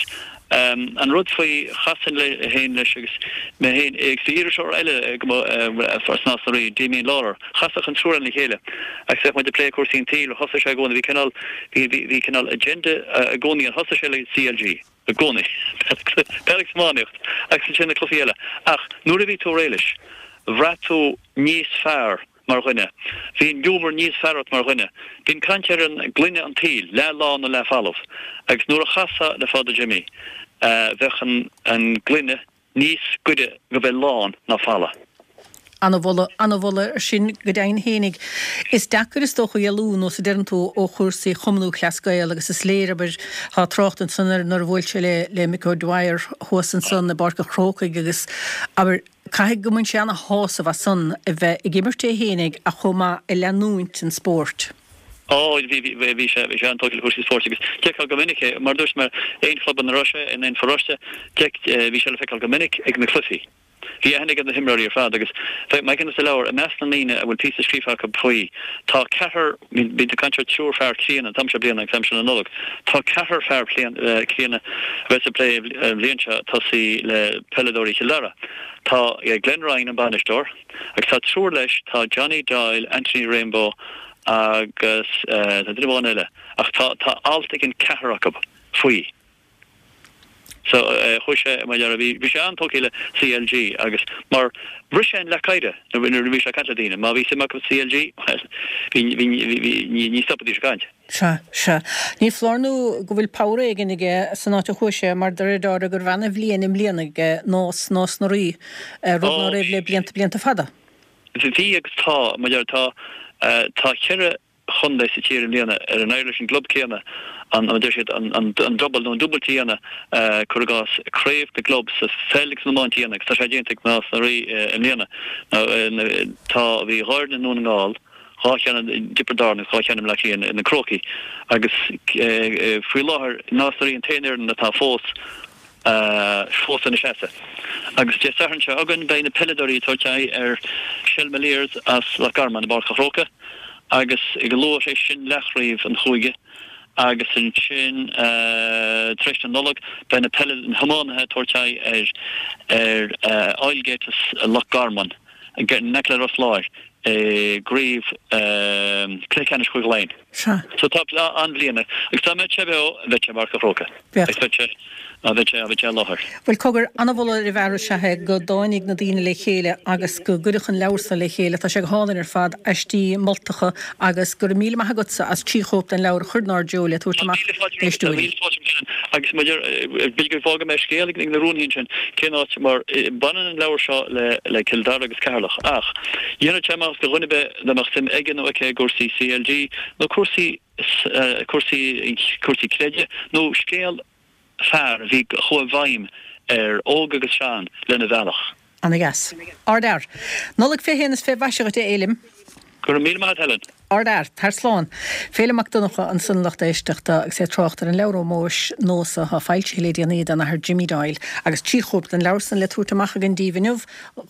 [SPEAKER 3] an rud faoi, chasfainn le féin leis agus mé féin agus bhí iriseoir eile as Nás na Rí, Damien Lawlor, chasfadh an triúr againn le chéile agus bheadh muid ag plé cúrsaí an tsaoil, thosaigh sé i gcónaí, bhí cineál, Bhí, bhí, bhí cineál agenda i gcónaí ann. Thosaigh sé le CLG i gcónaí. Peil agus iománaíocht agus ansin na cluichí eile. Ach nuair a bhí tú réidh leis, bhraith tú níos fearr mar dhuine. Bhí an giúmar níos fearr ort mar dhuine. Bíonn caint ar an gloine an tsaoil, leath lán nó leath folamh. Agus nuair a chasfá le Father Jimmy, bheadh an, an gloine níos gaire go bheith lán ná folamh.
[SPEAKER 1] Ana-mholadh, ana-mholadh air sin go deimhin fhéinig. Is deacair is dócha éalú, nós a deireann tú, ó chúrsaí Chumann Lúthchleas Gael agus is léir, abair, tá trácht ansan air nuair a bhuail sé le, le Mick O'Dwyer thuas ansan i bPáirc an Chrócaigh agus, abair, caithfidh go mbain sé ana-shásamh as san a bheith ag imirt é fhéinig ach chomh maith ag leanúint an spóirt.
[SPEAKER 3] Ó, bhí, bhí, bhí sé, bhí sé an-tógtha le cúrsaí spóirt agus d'fheicfeá go minic é, mar a dúirt mé, aon chlub ina raibh sé, in aon pharóiste, d'fheic, bhí sé le feiceáil go minic ag na cluichí. Bhí aithne aige ar na himreoirí ar fad agus mar a deirim sa leabhar, i measc na ndaoine a bhfuil píosa scríofa acu faoi, tá ceathrar, bíonn ag caint ar triúr fear críonna an t-am seo bliana agus aimsir na Nollag, tá ceathrar fear críonna a bheas ag plé an bhliain seo tosaí le peileadóirí Chill Dara. Tá Glenn Ryan, an bainisteoir, Agus tá triúr leis, tá Johnny Doyle, Anthony Rainbow agus tá duine amháin eile ach tá tá alt ag an ceathrar acu faoi. So chuaigh sé mar dhea, bhí bhí sé an-tógtha le CLG agus mar bhris sé an leac oighir nuair a bhí sé ag caint le daoine. Má bhí suim acu sa CLG, bhuel, bhí bhí bhí ní ní stopaidís ag caint.
[SPEAKER 1] Sea, sea. Ní foláir nó go bhfuil pabhar éigin aige san áit a chuaigh sé, mar de réir dealraimh go raibh ana-bhliain i mbliana aige Nás, Nás na Rí, rud ná raibh le blianta, blianta fada.
[SPEAKER 3] Bhí agus tá, mar a deir, tá, tá cheithre chontae sa tír i mbliana ar ar éirigh leis an gclub céanna an, mar a deir siad, an, an, an double nó an dúbailt a dhéanamh, cuir i gcás, craobh na gclub sa pheil agus san iomáint a dhéanamh agus tá sé déanta ag Nás na Rí i mbliana. Tá, bhí dhá fhoireann i nDún na nGall, 2 cheann i dTiobraid Árann agus 2 cheann i mBleá Cliath, na Crócaigh, agus faoi láthair Nás na Rí an t-aon fhoireann atá fós fós ina seasamh. Agus Dé Sathairn seo chugainn beidh na peileadóirí ag tabhairt aghaidh ar Shelmaliers as Loch Garman i bPáirc an Chrócaigh agus go luath tar éis sin leathchraobh an chúige agus ansin tar éis na Nollag beidh na peile na hiománaithe ag tabhairt aghaidh ar ar Oylegate as Loch Garman in aice le Ros Láir i gcraobh cluiche ceannais Chúige Laighean.
[SPEAKER 1] Sea.
[SPEAKER 3] So tá an-bhliain agus dá mbeadh sé beo bheadh sé i bPáirc an Chrócaigh.
[SPEAKER 1] Bheadh.
[SPEAKER 3] Agus bheadh sé, bheadh sé, bheadh sé i láthair.
[SPEAKER 1] Bhuel, cogar, an-mholadh ar an bhfear is ea é go dtáinig na daoine le chéile agus go gcuireadh an leabhar so le chéile. Tá sé go hálainn ar fad, aistí moltacha agus go raibh míle maith agatsa as 3 chóip den leabhar a chur inár dtreo le tabhairt amach
[SPEAKER 3] d'éisteoirí. Tá míle fáilte romhat agus maidir, b'fhéidir go bhfágfaidh mé scéal ag na rúnaithe ansin, cén áit, mar baineann an leabhar seo le Cill Dara agus Ceatharlach ach dhéanfadh sé maitheas do dhuine ar bith dá mbeadh suim aige nó aici i gcúrsaí CLG nó cúrsaí, cúrsaí, cúrsaí creidimh nó scéal fear a bhí, a chuaigh i bhfeidhm ar óg agus sean lena bhealach.
[SPEAKER 1] Ana dheas. Ard fhear. Nollaig fé shéan is fé mhaise dhuit a Fhéilim.
[SPEAKER 3] Go raibh míle maith agat Helen.
[SPEAKER 1] Ard fhear. Tar slán. Féilim Mac Donncha ansan a lucht éisteachta agus é ag trácht ar an leabhar ómóis Nós atá foilsithe le déanaí don Athair Jimmy Doyle agus 3 chóip den leabhar san le tabhairt amach againn díbh inniu,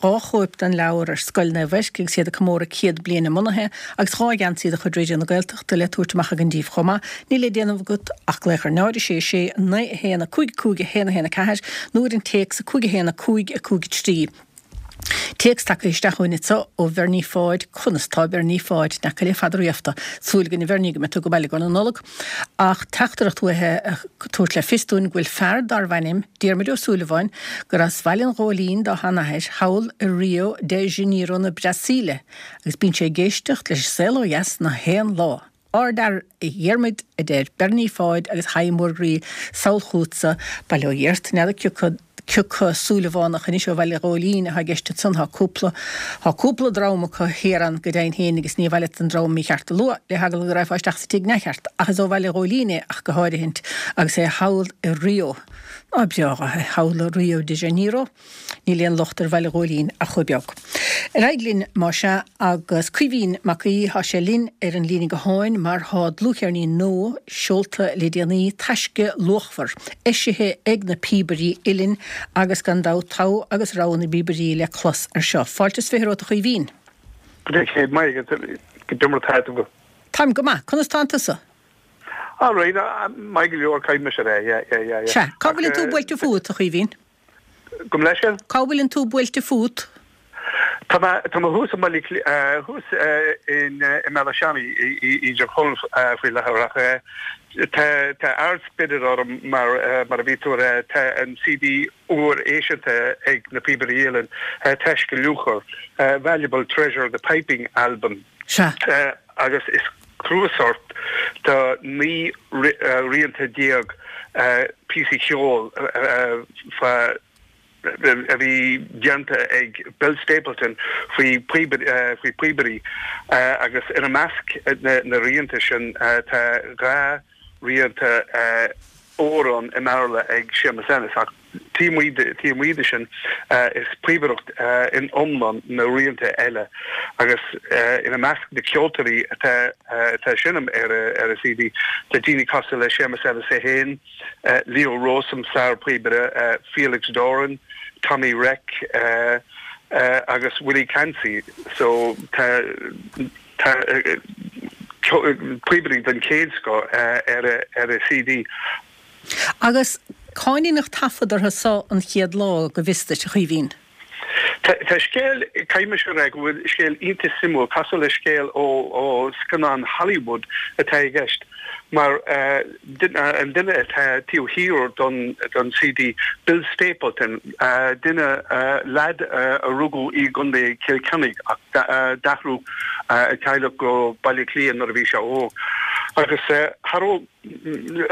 [SPEAKER 1] 2 chóip den leabhar ar Scoil Naomh Eirc agus iad ag comóradh 100 bliain a mbunaithe agus 2 gheansaí de chuid Raidió na Gaeltachta le tabhairt amach againn díbh chomh maith. Níl le déanamh agat ach glaoch ar 0 6 6 9 1 5 5 1 1 4 nó ar an téacs 5 1 5 5 3. Téacs tagtha isteach chugainn anseo ó Bhernie Pháid, Conas tá Bernie Pháid? N'fheaca le fada riafta. Súil againn a Bhernie go mbeidh tú go maith i gcomhair na Nollag. Ach teachtaireacht uaithe ag tabhairt le fios dúinn go bhfuil fear darbh ainm Diarmuid Ó Súilleabháin, gur as Bhaile an Ghóilín dá sheanathair, thall i Rio de Janeiro na Brasaíle agus bíonn sé ag éisteacht leis An Saol Ó Dheas na haon lá. Ardfhear a Dhiarmuid, a deir Bernie Pháid agus haidhm mhór groí sall chugatsa, bail ó Dhia ort, n'fheadar cioca cioca Súilleabhánach anois ó Bhaile Ghóilín atá i gceist ansan, tá cúpla, tá cúpla dream acu thiar ann go deimhin féin agus ní mhaith leat an dream mícheart a lua le heagla go raghfá isteach sa tigh neamhcheart ach is ó Bhaile Ghóilín é ach go háirithint agus é thall i Rio. Ná breá é thall i Rio de Janeiro. Níl aon locht ar Bhaile Ghóilín ach chomh beag. Ar aghaidh linn, más ea, agus Caoimhín Mac Aoidh, tá sé linn ar an líne gutháin mar tá dlúthcheirnín nua seolta le déanaí, Taisce Luachmhar, eisithe ag na Píobairí Uilleann agus gan dabht togha agus rogha na bpíobairí le clos air seo. Fáilte is 20 romhat a Chaoimhín.
[SPEAKER 4] Go raibh céad maith agat. Goidé mar atá tú.
[SPEAKER 1] Táim go maith. Conas tánn tusa?
[SPEAKER 4] All right, maith go leor, caithfidh mise a rá, yeah, yeah, yeah, yeah.
[SPEAKER 1] Sea. Cá bhfuileann tú buailte fút, a Chaoimhín?
[SPEAKER 4] Gabh mo leithscéal?
[SPEAKER 1] Cá bhfuileann tú buailte fút?
[SPEAKER 4] Tá mé, tá mé thuas i mBaile Átha Cliath, thuas in, i mBéal Átha Seanaidh, i dTír Chonaill faoi láthair ach tá, tá ard-spiorad orm mar, mar a bhí tú a rá, tá an CD úr eisithe ag na Píobairí Uilleann, Taisce Luachmhar, Valuable Treasure, The Piping Album.
[SPEAKER 1] Sea.
[SPEAKER 4] Agus is cnuasach de 19 rianta píosaí ceoil fá a bhí déanta ag Bill Stapleton faoi phíobairí agus ina measc na rianta sin tá 2 rianta amhrán i mBéarla ag Séamus Ennis ach taobh amuigh de sin is píobaireacht in iomlán na rianta eile agus ina measc na ceoltóirí atá ag seinm ar an CD tá daoine cosúil le Séamus Ennis é féin, Leo Rowsome, sár-phíobaire, Felix Doran, Tommy Reck agus Willie Clancy so tá Tá píobairí den chéad scoth ar an CD.
[SPEAKER 1] Agus cá ndeineadh taifead orthu so an chéad lá, go bhfios duit, a Chaoimhín?
[SPEAKER 4] Tá scéal, caithfidh mise a rá go bhfuil scéal iontach suimiúil, cosúil le scéal ó scannán Hollywood atá i gceist. Mar an duine atá taobh thiar don CD, Bill Stapleton, duine, leaid a rugadh i gContae Chill Chainnigh ach d'athrú a teaghlach go Baile Átha Cliath nuair a bhí sé óg. Agus cha raibh,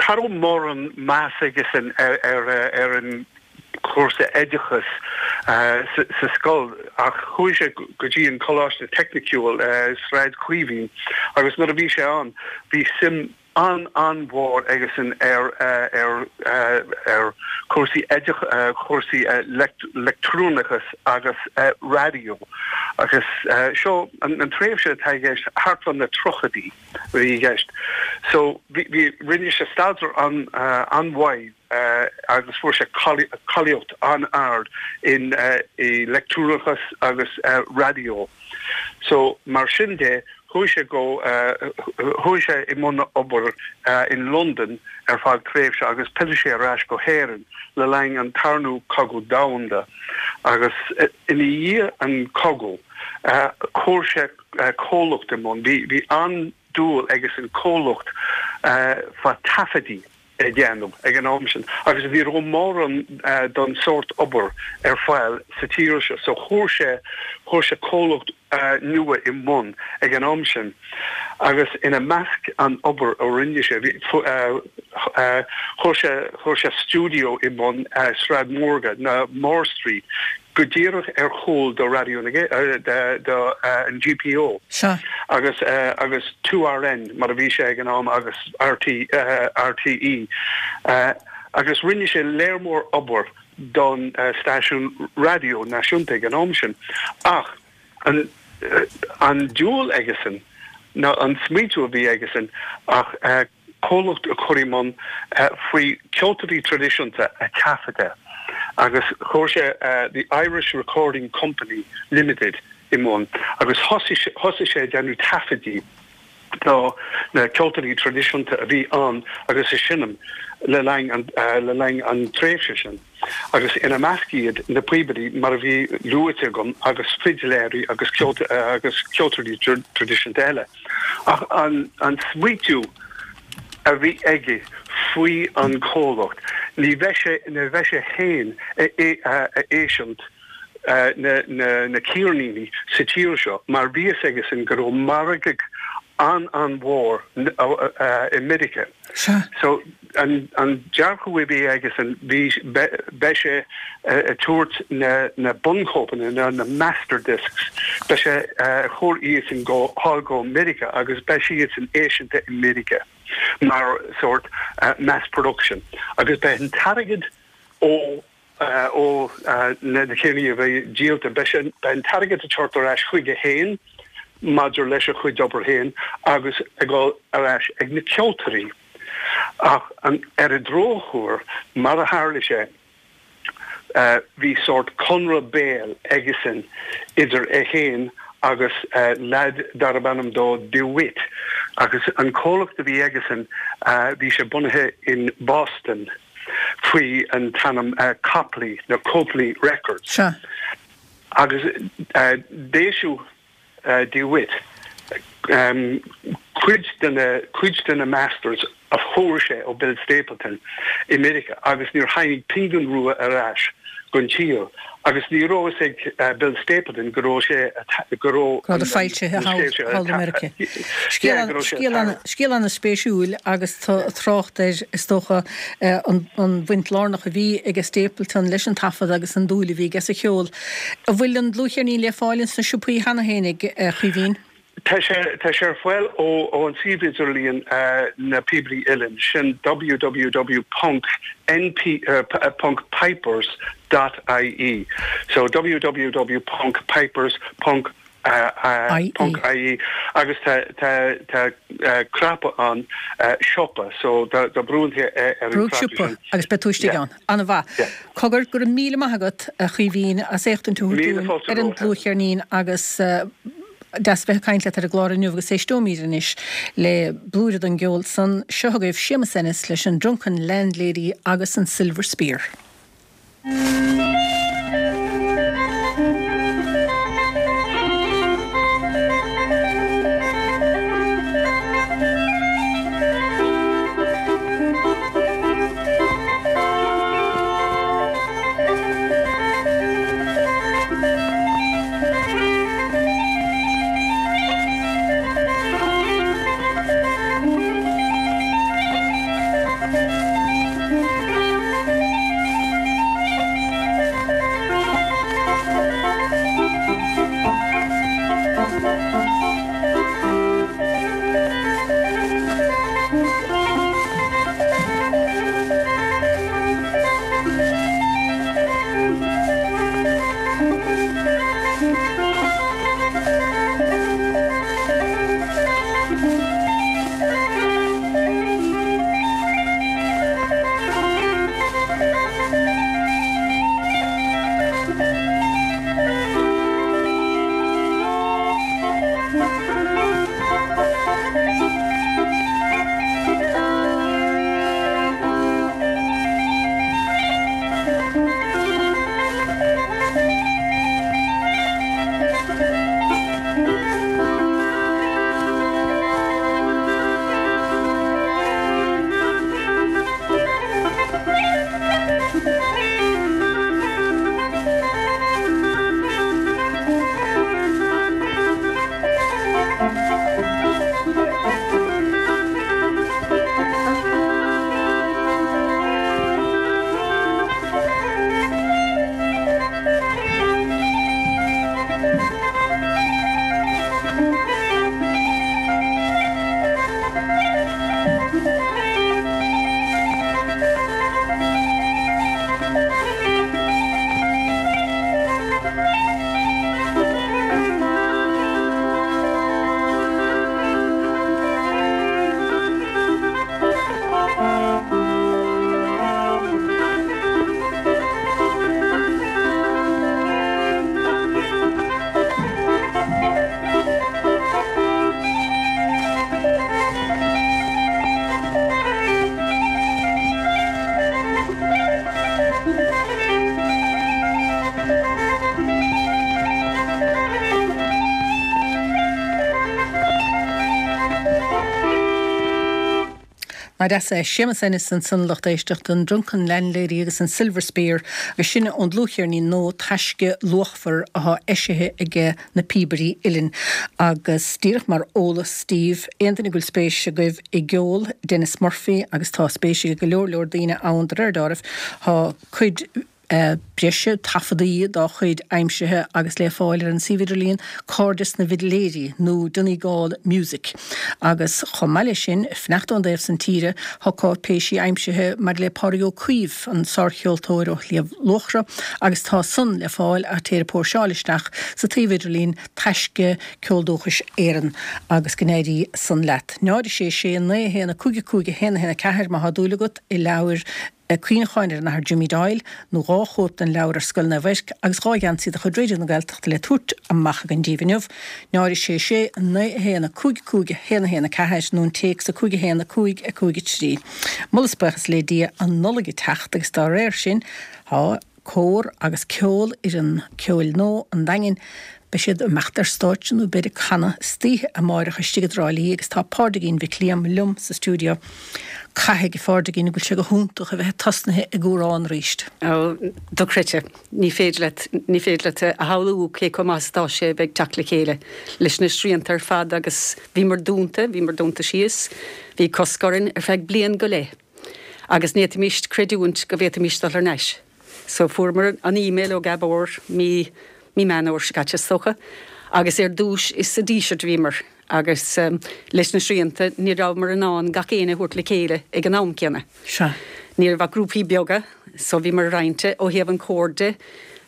[SPEAKER 4] cha raibh mórán meas aigesean ar an chúrsa oideachais sa scoil ach chuaigh sé go dtí an Coláiste Teicniciúil Sráid Chaoimhín agus nuair a bhí sé ann bhí suim an-an-mhór aigesean ar ar ar chúrsaí oideachais, chúrsaí leictreonachas agus raidió agus seo an tréimhse atá i gceist thart fá na tríochaidí a bhí i gceist. So bhí rinne sé staidéar an-mhaith agus fuair sé cáilíocht an-ard in i leictreonachas agus raidió. So mar sin de chuaigh sé go chuaigh sé i mbun obair in Londain ar feadh tréimhse agus phill sé ar ais go hÉirinn le linn an Tarna Cogadh Domhanda agus ina dhiaidh an cogadh chuir sé comhlacht i mbun. Bhí bhí an-dúil aigesean comhlacht fá taifeadaí a dhéanamh ag an am sin agus ní raibh mórán don sórt obair ar fáil sa tír seo so chuir sé chuir sé comhlacht nua i mbun ag an am sin agus ina measc an obair a rinne sé bhí chuir sé chuir sé stiúideo i mbun Sráid Mhórga ná Moore Street go díreach ar chúl do Raidió na do an GPO agus agus 2RN mar a bhí sé ag an am agus RT RTÉ agus rinne sé léar mór obair don stáisiún raidió náisiúnta ag an am sin ach an an dúil aigesean nó an smaoitiú a bhí aigesean ach comhlacht a chur i mbun faoi ceoltóirí traidisiúnta a taifeadadh agus chuir sé The Irish Recording Company Limited i mbun agus thosaigh sé ag déanamh taifeadaí. Do na ceoltóirí traidisiúnta a bhí ann agus ag seinm le linn an le linn an tréimhse sin, agus ina measc iad na píobairí mar a bhí luaite agam agus fidléirí agus agus ceoltóirí traidisiúnta eile. Ach an an smaoitiú a bhí aige faoi an comhlacht, ní bheidh sé ní bheidh sé féin a éisiúint na ceirníní sa tír seo mar bhí fhios aigesan go raibh margadh an-an-mhór i Meiriceá. So an dearcadh a bhí aigesan bhí beidh sé ag tabhairt na bunchóipeanna nó na master discs, beidh sé ag cur iadsan go thall go Meiriceá agus beidh siadsan eisithe i Meiriceá mar sórt mass production agus beidh an t-airgead ó ó na ceirníní a bheidh díolta. Beidh an t-airgead ag teacht ar ais chuige féin maidir leis a chuid obair féin agus ag dul ar ais ag na ceoltóirí. Ach ar an drochuair, mar a tharla sé, bhí sórt conradh béil aigesan idir é féin agus leaid darb ainm dó DeWitt agus an comhlacht a bhí aigesan, bhí sé bunaithe in Boston. faoi an t-ainm Copley nó Copley Records.
[SPEAKER 1] Sea.
[SPEAKER 4] Agus d'eisiúdh DeWitt cuid de na cuid de na masters a fuair sé ó Bill Stapleton i Meiriceá agus níor tháinig pingin rua ar ais gon tír agus ní raibh fhios ag Bill Stapleton go raibh sé go raibh
[SPEAKER 1] Go raibh foilsithe thall i Meiriceá. Scéal an-spéisiúil agus trácht air, is dócha, an bhaint lárnach a bhí ag Stapleton leis an taifead agus an dúil a bhí aige sa cheol. An bhfuil an dlúthcheirnín le fáil ins na siopaí cheana féin, a Chaoimhín?
[SPEAKER 4] Tá sé tá sé ar fáil ó ó an suíomh idirlíon Na Píobairí Uilleann, sin www ponc np ponc pipers dot ie. So www ponc pipers ponc ponc ie agus tá tá tá cnaipe ann siopa so dá brúnn tú ar an
[SPEAKER 1] Brúigh cnaipe siopa sin. agus beidh tú istigh ann. An-mhaith. Cogar, go raibh míle maith agat, a Chaoimhín, as éachtaint a thabhairt dúinn ar an dlúthcheirnín agus deas a bheith ag caint leat ar an gclár inniu agus éisteoimid anois le blúire den gceol san. Seo chugaibh Séamus Ennis leis an Drunken Landlady agus an Silver Spear. Nach deas é Séamus Ennis ansan lucht éisteachta, an Drunken Landlady agus an Silver Spear agus sin ón dlúthcheirnín nua Taisce Luachmhar athá eisithe aige Na Píobairí Uilleann. Agus díreach mar eolas daoibh, aon duine go bhfuil spéis agaibh i gceol Denis Murphy, agus tá spéis ag go leor leor daoine ann de réir deáraimh, tá cuid breise taifeadaí dá chuid aimsithe agus le fáil ar an suíomh idirlíon Cairdeas na bhFidléirí nó Donegal Music. Agus chomh maith leis sin, fanacht ón dtaobh san tíre, tá cáipéisí aimsithe maidir le Pádraig Ó Caoimh, an sárcheoltóir ó Shliabh Luachra, agus tá san le fáil ach téir ag póirseáil isteach sa tsuíomh idirlín Taisce Ceol Dúchais Éireann agus go n-éirí san leat. 0 6 6 9 1 5 5 1 1 4 má thá dúil agat i leabhair cuimhneacháin ar an Athair Jimmy Doyle, nó 2 chóip den leabhar Ar Scoil Naomh Eirc agus 2 gheansaí de chuid Raidió na Gaeltachta le tabhairt amach againn daoibh inniu, 0 6 6 9 1 5 5 1 1 4 nó an téacs 5 1 5 5 3. Moladh is buíochas le Dia, an Nollaig ag teacht agus dá réir sin tá cór agus ceol fhoireann ceoil nua an Daingin. Beidh siad ag imeacht ar stáitse nó beid ag canadh istoíche amáireach istigh i dTrá Lí agus tá Pádraigín Mhic Liam liom sa stiúideo. Caithfidh, a Phádraigín, go bhfuil sé go hiontach a bheith tosnaithe ag amhrán arís.
[SPEAKER 5] Ó, dochreidte. Ní féidir leat, ní féidir leat a shamhlú cé chomh maith is atá sé a bheith ag teacht le chéile leis na srianta ar fad agus bhíomar dúnta, bhíomar dúnta síos, bhí cosc orainn ar feadh bliain go leith agus ní fhéadfaimis creidiúint go bhféadfaimis dul thar n-ais. So fuaireamar an email ó Gabor mí, mí Meán Fhómhair seo caite is dócha, agus ar dtús is sa Díseart a bhíomar agus leis na srianta ní rabhamar in ann gach éinne a thabhairt le chéile ag an am céanna.
[SPEAKER 1] Sea.
[SPEAKER 5] Ní raibh ach grúpaí beaga so bhíomar roinnte ó thaobh an chóir de.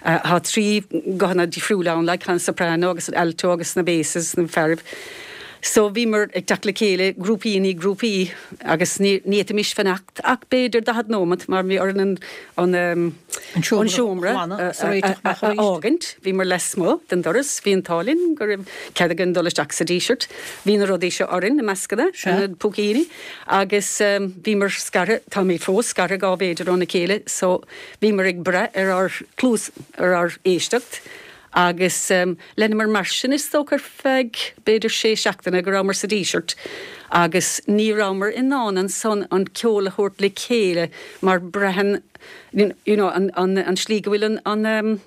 [SPEAKER 5] Tá 3 guthanna difriúla ann like, an soprano agus an alto agus na basses, na fearaibh. So bhíomar ag teacht le chéile grúpaí i ndiaidh grúpaí agus ní ní fhéadfaimis fanacht ach b'fhéidir 40 nóimeat mar bhí orainn an an
[SPEAKER 1] An seomra a
[SPEAKER 5] seomra
[SPEAKER 1] ghlanadh
[SPEAKER 5] a
[SPEAKER 1] agus a réiteach amach
[SPEAKER 5] a
[SPEAKER 1] arís.
[SPEAKER 5] fhágaint. Bhíomar lasmuigh den doras, bhí an t-ádh linn go raibh cead againn dul isteach sa Díseart. Bhí na rudaí seo orainn, na mascanna,
[SPEAKER 1] Sea.
[SPEAKER 5] na púicíní agus bhíomar scartha, táimid fós scartha 2 mhéadar óna chéile so Bhíomar ag brath ar ár gcluas, ar ár éisteacht agus leanamar mar sin is dócha ar feadh b'fhéidir sé seachtaine go rabhamar sa Díseart agus ní rabhamar in ann ansan an ceol a thabhairt le chéile mar braitheann you know an an an slí go bhfuil an an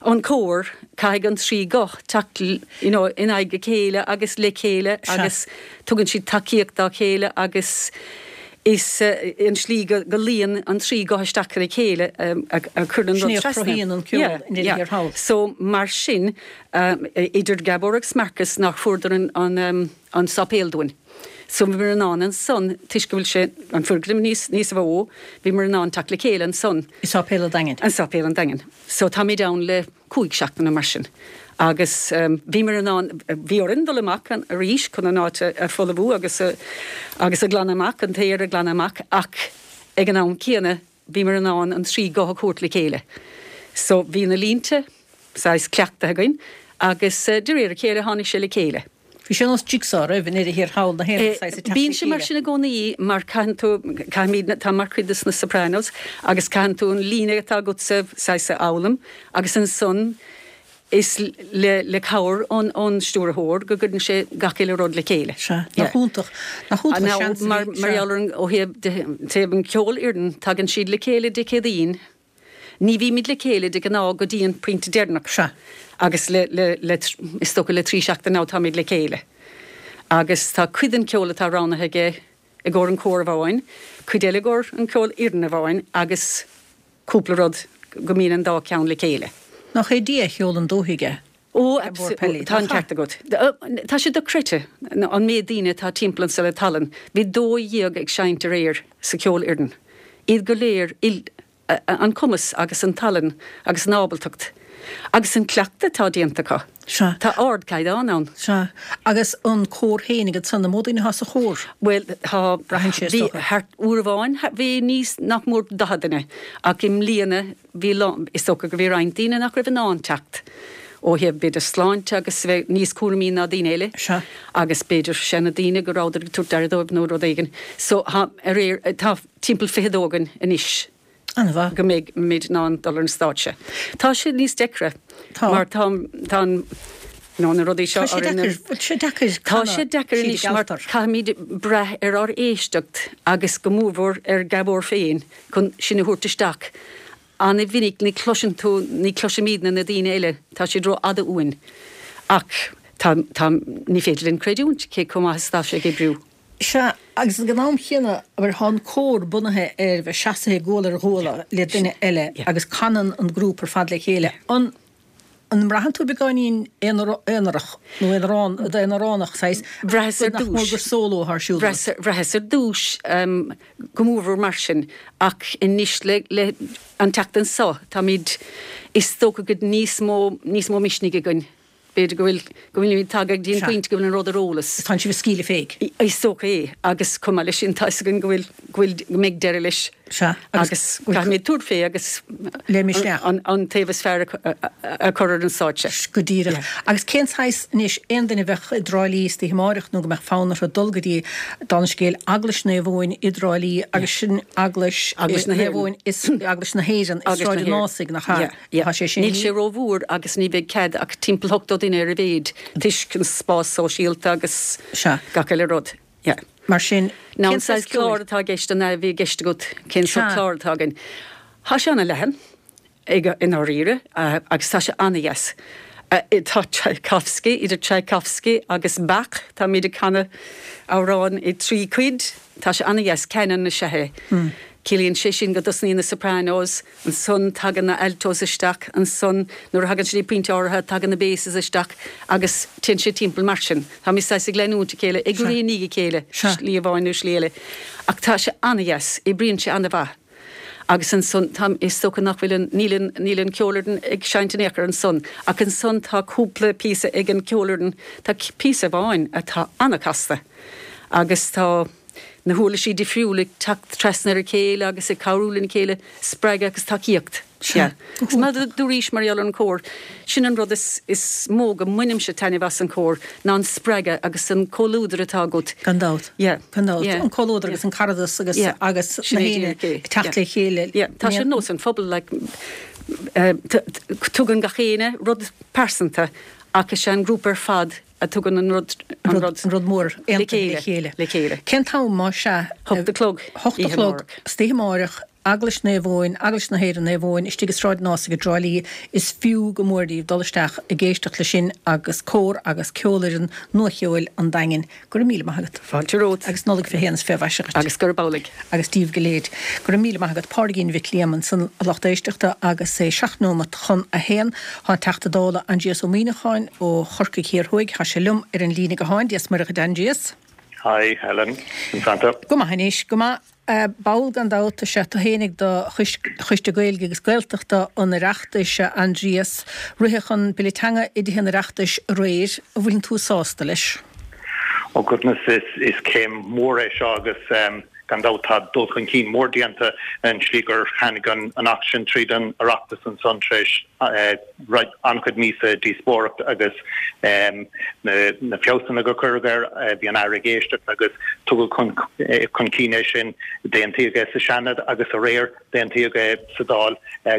[SPEAKER 5] an cór caithfidh an trí guth teacht you know in aghaidh a chéile agus le chéile agus tugann siad tacaíocht dá chéile agus Is an slí go luíonn an trí guth isteach ar a chéile a chuireann an
[SPEAKER 1] Sin
[SPEAKER 5] rud
[SPEAKER 1] é a
[SPEAKER 5] trasna.
[SPEAKER 1] chruthaíonn an ceol i ndeireadh thiar thall.
[SPEAKER 5] So mar sin, idir Gabor agus Marcus nár fuaireadar an an sáipéal dúinn. So bhíomar in ann ansan, toisc go bhfuil sé, an foirgneamh níos níos mó, bhíomar in ann teacht le chéile ansan.
[SPEAKER 1] I Sáipéal an Daingin.
[SPEAKER 5] I Sáipéal an Daingin. So táimid ann le 5 seachtaine mar sin agus bhíomar in ann, bhí orainn dul amach arís chun an áit a fholmhú agus a agus a ghlanadh amach, an t-aer a ghlanadh amach ach ag an am céanna bhíomar in ann an trí guth a thabhairt le chéile. So bhí na línte saghas cleachtaithe againn agus de réir a chéile tháinig sé le chéile.
[SPEAKER 1] Bhí sé ar nós jigsaw roimh i ndeireadh thiar thall na haon saghas ag teacht le
[SPEAKER 5] Bíonn sé mar
[SPEAKER 1] chéile.
[SPEAKER 5] sin i gcónaí mar caitheann tú, caithfimid, tá mar chuid de na Sopranos agus caitheann tú an líne atá agatsa saghas a fhoghlaim agus ansan is le le cabhair ón ón stiúrthóir go gcuireann sé gach uile rud le chéile.
[SPEAKER 1] Sea, nach iontach, nach iontach an seans a bhí,
[SPEAKER 5] Mar mar
[SPEAKER 1] sea.
[SPEAKER 5] gheall ar an, ó thaobh de thaobh an cheolfhoireann tagann siad le chéile Dé Céadaoin Ní bhímid le chéile de ghnáth go dtí an pointe deireanach.
[SPEAKER 1] Sea.
[SPEAKER 5] Agus le, le, le, is dócha le trí seachtaine now táimid le chéile. Agus tá cuid den cheol atá roghnaithe aige i gcomhair an chóir amháin, cuid eile i gcomhair an cheolfhoireann amháin agus cúpla rud go mbíonn an dá cheann le chéile.
[SPEAKER 1] Nach é Dia a sheolann dúthaigh é?
[SPEAKER 5] Ó,
[SPEAKER 1] Gabor Pelly.
[SPEAKER 5] tá an ceart agat. Tá sé dochreidte an méid daoine atá timpeall anso le tallann. Bhí 12 ag seinnt aréir sa cheolfhoireann. Iad go léir an cumas agus an tallann agus an ábaltacht agus an cleachtadh atá déanta acu.
[SPEAKER 1] Sea.
[SPEAKER 5] Tá ardchaighdeán ann.
[SPEAKER 1] Sea. Agus an cór féinig ansan, an mó daoine atá sa chór?
[SPEAKER 5] Bhuel, tá,
[SPEAKER 1] Braitheann sé, is
[SPEAKER 5] bhí
[SPEAKER 1] dócha.
[SPEAKER 5] thart, uair amháin bhí níos, nach mór 40 duine ach i mbliana Bhí lán, is dócha go bhí roinnt daoine nach raibh in ann teacht ó thaobh b'fhéidir sláinte agus a bheith níos cúramaí ná daoine eile
[SPEAKER 1] Sea.
[SPEAKER 5] agus b'fhéidir seana daoine go rabhadar ag tabhairt aire dóibh nó rud éigin. So tá, aréir, tá timpeall 22 againn anois
[SPEAKER 1] An-mhaith.
[SPEAKER 5] go mbeidh muid in ann dul ar an stáitse. Tá sé níos deacra
[SPEAKER 1] Tá.
[SPEAKER 5] mar tá, tá an. Nó na rudaí seo
[SPEAKER 1] Tá sé deacair, bhfuil sé deacair
[SPEAKER 5] Tá sé deacair anois mar caithfimid brath ar ár éisteacht agus go mórmhór ar Gabhar féin chun sinn a thabhairt isteach. An-mhinic ní chloiseann tú, ní chloisimidne na daoine eile, tá siad ró-fhada uainn. Ach tá, tá, ní féidir linn creidiúint cé chomh maith is atá sé ag oibriú.
[SPEAKER 1] Sea, agus ag an am chéanna, abair, tá an cór bunaithe ar bheith seasaithe guala ar ghuala le duine eile agus canann an grúpa ar fad le chéile. An an mbraitheann tú beagáinín aonarach nó aonarán, aonaránach, saghas,
[SPEAKER 5] Bhraitheas ar
[SPEAKER 1] nach mór
[SPEAKER 5] dtús.
[SPEAKER 1] gur sóló atá ar siúl agat?
[SPEAKER 5] Bhraitheas ar dtús go mórmhór mar sin ach anois le, le an tseachtain seo táimid, is dócha go níos mó, níos mó misnigh againn. B'fhéidir go bhfuil, go bhfuilimid tagtha go dtí an pointe go bhfuil an rud ar eolas.
[SPEAKER 1] Tánn sibh ag scaoileadh féig.
[SPEAKER 5] Is dócha é, agus chomh maith leis sin tá fhios againn go bhfuil, go bhfuil, go mbeidh deireadh leis.
[SPEAKER 1] Sea,
[SPEAKER 5] agus caithfimid tabhairt fé agus
[SPEAKER 1] Le misneach.
[SPEAKER 5] an, an taobh is fearr a, a chur ar an stáitse.
[SPEAKER 1] Go díreach. Agus cén saghas, anois, aon duine a bheadh i dTrá Lí istoíche amáireach nó go mbeadh fonn orthu dul go dtí, dála an scéil, Eaglais Naomh Eoin i dTrá Lí agus sin Eaglais
[SPEAKER 5] Eaglais na
[SPEAKER 1] Naomh
[SPEAKER 5] hÉireann.
[SPEAKER 1] Eoin is Eaglais na hÉireann i
[SPEAKER 5] Eaglais
[SPEAKER 1] Sráid
[SPEAKER 5] na
[SPEAKER 1] an
[SPEAKER 5] hÉireann.
[SPEAKER 1] Ásaigh, nach ea?
[SPEAKER 5] Yeah. Yeah.
[SPEAKER 1] Tá sé sin.
[SPEAKER 5] Níl sé rómhór agus ní bheidh cead ach timpeall 80 duine ar a mhéid toisc an spás sóisialta agus
[SPEAKER 1] Sea.
[SPEAKER 5] gach uile rud. Yeah.
[SPEAKER 1] Mar sin,
[SPEAKER 5] Now
[SPEAKER 1] cén
[SPEAKER 5] an saghas
[SPEAKER 1] saghas ceoil?
[SPEAKER 5] clár atá i gceist, an ea a bhí i gceist agat, cén sórt
[SPEAKER 1] Sea.
[SPEAKER 5] clár atá againn? Tá sé ana-leathan ag, i ndáiríre, agus tá sé ana-dheas. Tá Tchaikovsky, idir Tchaikovsky agus Bach, táimid ag canadh amhráin i dtrí cuid, tá sé ana-dheas, canon is ea é. Ciallaíonn sé sin go dtosnaíonn na sopranos, Ansan tagann na altos isteach, ansan nuair a thagann sé dtí pointe áirithe tagann na basses isteach agus téann sé timpeall mar sin. Táimid saghas ag leanúint a chéile, ag rith i ndiaidh a chéile, slí amháin nó slí eile. Ach tá sé ana-dheas, oibríonn sé ana-mhaith. Agus ansan tá, is dócha nach bhfuil an, níl an, níl an ceolfhoireann ag seinnt in aon chor ansan. Ach ansan tá cúpla píosa ag an ceolfhoireann, tá píosa amháin atá ana-chasta agus tá, na huirlisí difriúla ag teacht trasna ar a chéile agus ag cabhrú lena chéile, spreagadh agus tacaíocht. Sea. Agus mar a dúraís mar gheall ar an chór, sin an rud is is mó go mbainimse taitneamh as an chór, ná an spreagadh agus an comhluadar atá agat.
[SPEAKER 1] Gan dabht.
[SPEAKER 5] Yeah.
[SPEAKER 1] Gan dabht.
[SPEAKER 5] Yeah.
[SPEAKER 1] An comhluadar agus an caradas agus
[SPEAKER 5] Yeah.
[SPEAKER 1] agus
[SPEAKER 5] Sin
[SPEAKER 1] na
[SPEAKER 5] é
[SPEAKER 1] héinne
[SPEAKER 5] díreach é.
[SPEAKER 1] ag teacht le chéile.
[SPEAKER 5] Yeah. Tá sé ar nós an phobal like tugann gach éinne rud pearsanta ach is é an grúpa ar fad a tugann an rud, an rud,
[SPEAKER 1] an rud mór aontaithe le chéile.
[SPEAKER 5] Le chéile.
[SPEAKER 1] Cén t-am, más ea?
[SPEAKER 5] Hocht a chlog.
[SPEAKER 1] Hocht a chlog, istoíche amáireach, Eaglais Naomh Eoin, Eaglais na hÉireann Naomh Eoin, istigh i Sráid an Ásaigh i dTrá Lí. Is fiú go mór daoibh dul isteach ag éisteacht leis sin agus cór agus ceolfhoireann Nua-Cheoil an Daingin. Go raibh míle maith agat.
[SPEAKER 5] Fáilte romhat.
[SPEAKER 1] Agus Nollaig 21 is 20 mhaise dhuit.
[SPEAKER 5] Agus gurb amhlaidh.
[SPEAKER 1] Agus daoibh go léir. Go raibh míle maith agat. Pádraigín Mhic Liam ansan a lucht éisteachta agus é seacht nóimeat chun a haon. Tá an Teachta Dála Aindrias Ó Muimhneacháin ó Chorcaigh Thiar Thuaidh, tá sé liom ar an líne gutháin. Dia 's Muire dhuit Aindrias.
[SPEAKER 6] Hi Helen, conas tánn tú?
[SPEAKER 1] Go maith anois, go maith. Ball gan dabht is ea tú fhéinig de Choiste Gaeilge agus Gaeltachta an Oireachtais, a Aindrias. Ritheadh an Bille Teanga i dTithe an Oireachtais aréir. An bhfuileann tú sásta leis?
[SPEAKER 6] Oh goodness, is céim mhór é seo agus gan dabht tá dul chun cinn mór déanta an tslí gur tháinig an Acht sin tríd an Oireachtas ansan tar éis an-chuid míosa díospóireacht agus na feabhsanna gur cuireadh air, bhí an Aire ag éisteacht agus tugadh chun cinn é sin, d'aontaíodh é sa Seanad agus aréir d'aontaíodh é sa Dáil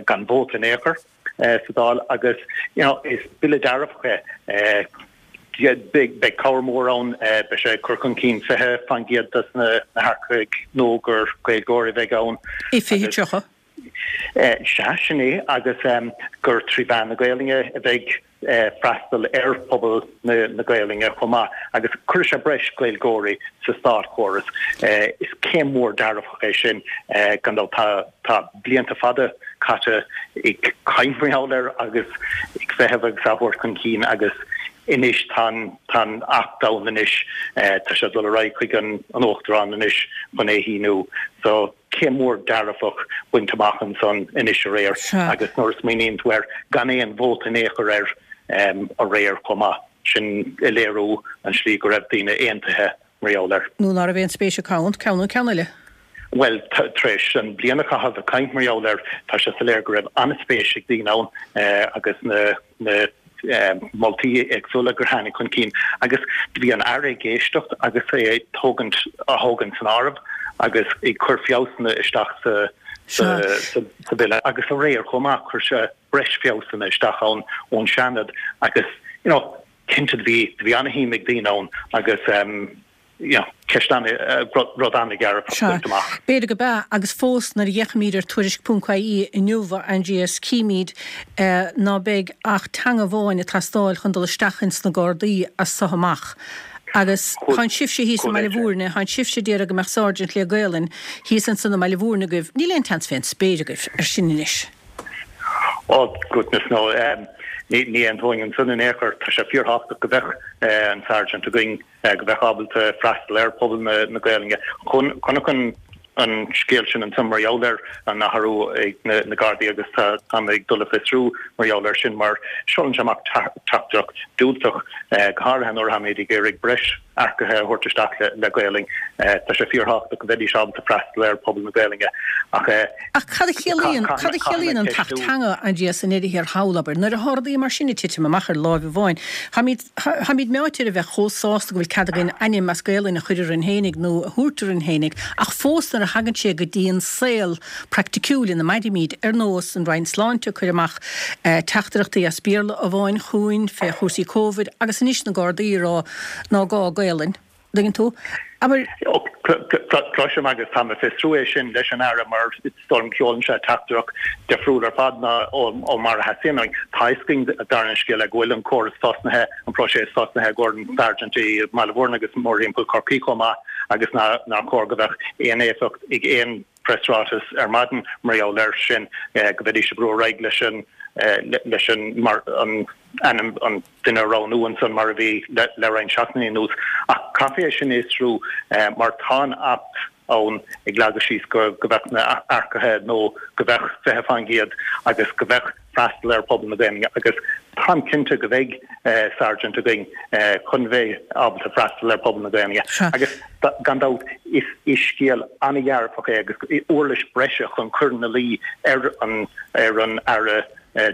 [SPEAKER 6] gan vóta in aon chor sa Dáil agus you know is bille dearfach é. Beidh cabhair mhór ann, beidh sé ag cur chun cinn 20% des na hearcaigh nua gur Gaeilgeoirí a bheidh ann.
[SPEAKER 1] I 2030.
[SPEAKER 6] Sea, sin é, agus gur trí mheán na Gaelainne a bheidh freastal ar phobal na Gaelainne chomh maith, agus cuirfidh sé breis Gaeilgeoirí sa státchóras. Is céim mhór dearfach é sin, gan dabht. Tá blianta fada caite ag caint mar gheall air agus ag feitheamh agus á thabhairt chun cinn agus anois tá an Acht ann anois, tá sé ag dul ar aghaidh chuig an Uachtarán anois chun é a shíniú. So. Céim mhór dearfach bainte amach ansan anois aréir agus nuair a smaoiníonn tú air, gan aon vóta in aon chor air aréir chomh maith, sin ag léiriú an slí go raibh daoine aontaithe mar gheall air.
[SPEAKER 1] Nó ná raibh aon spéis acu ann, ceann nó ceann eile.
[SPEAKER 6] Bhuel, tar éis an bliain a chaitheamh ag caint mar gheall air, tá sé soiléir go raibh an-spéis ag daoine ann agus na na moltaí éagsúla gur tháinig chun cinn agus do bhí an Aire ag éisteacht agus é ag tógaint á thógaint san áireamh agus ag cur feabhsanna isteach sa sa bhille agus aréir chomh maith chuir sé breis feabhsanna isteach ann ón Seanad agus you know. Cinnte do bhí, do bhí ana-shuim ag daoine ann agus you know, ceist ana, rud ana-dhearfach
[SPEAKER 1] Sea,
[SPEAKER 6] bainte amach.
[SPEAKER 1] b'fhéidir go b'ea, agus fós nuair a fhéachaimid ar Tuairisc ponc ie inniu, a Aindrias, címid ná beidh ach teanga amháin ag teastáil chun dul isteach ins na Gardaí as so amach. Agus tánn sibhse thíos i mBaile Bhúirne, tánn sibhse ag iarraidh go mbeadh Sergeant le Gaolainn thíos ansan i mBaile Bhúirne agaibh, níl aon tseans fén spéir agaibh ar sin anois.
[SPEAKER 6] Oh goodness no, ní aontóinn ansan in aon chor. Tá sé fíorthábhachtach go mbeadh an Sergeant againn, go mbeadh ábalta freastal ar phobal na Gaolainne. Chonac an an scéal sin ansan mar gheall ar an athrú ag na Gardaí agus tá mé ag dul a fiosrú mar gheall air sin mar seolann sé amach teachtaireacht diúltach, go háirithe nuair atáimid ag iarraidh breis earcaithe a thabhairt isteach le Gaolainn. Tá sé fíorthábhachtach go mbeidís ábalta freastal ar phobal na Gaolainne ach.
[SPEAKER 1] Ach cad a chiallaíonn, cad a chiallaíonn an tAcht Teanga, Aindrias, i ndeireadh thiar thall, abair? Nuair atá rudaí mar sin ag titim amach ar láimh amháin, táimid, táimid meáite ar a bheith chomh sásta go bhfuil cead againn ainm as Gaolainn a chur orainn fhéinig nó a thabhairt orainn fhéinig, ach fós nuair a thagann sé go dtí an saol praiticiúil ina mairimid, ar nós an Roinn Sláinte ag cur amach teachtaireachtaí as Béarla amháin chugainn fé chúrsaí Covid agus anois na Gardaí ag rá ná gá Gaolainn. dtuigeann tú? Abair.
[SPEAKER 6] Cloisim agus táim ag fiosrú é sin leis an Aire mar is dóigh liom sheolann sé teachtaireacht difriúil ar fad ná ó mar a theastaíonn uainn. Tá fhios againn dar an scéal go bhfuil an córas tosnaithe, an próiseas tosnaithe i gcomhair an Sergeant i mBaile Bhúirne agus mórthimpeall Chorcaí chomh maith agus nár chóir go mbeadh aon éifeacht ag aon preasráiteas ar maidin mar gheall air sin, go mbeidís ag brú ar aghaidh leis an leis an mar an ainm an duine a roghnú ansan mar a bhí le roinnt seachtainí anuas. Ach caithfidh é sin a fhiosrú mar tá an Acht ann ag leagadh síos go go mbeadh na earcaithe nó go mbeadh 20% agus go mbeadh freastal ar phobal na Gaelainne agus táim cinnte go mbeidh Sergeant againn chun bheith ábalta freastal ar phobal na Gaelainne agus gan dabht is scéal an-dhearfach é agus uirlis breise chun cur ina luí ar an ar an Aire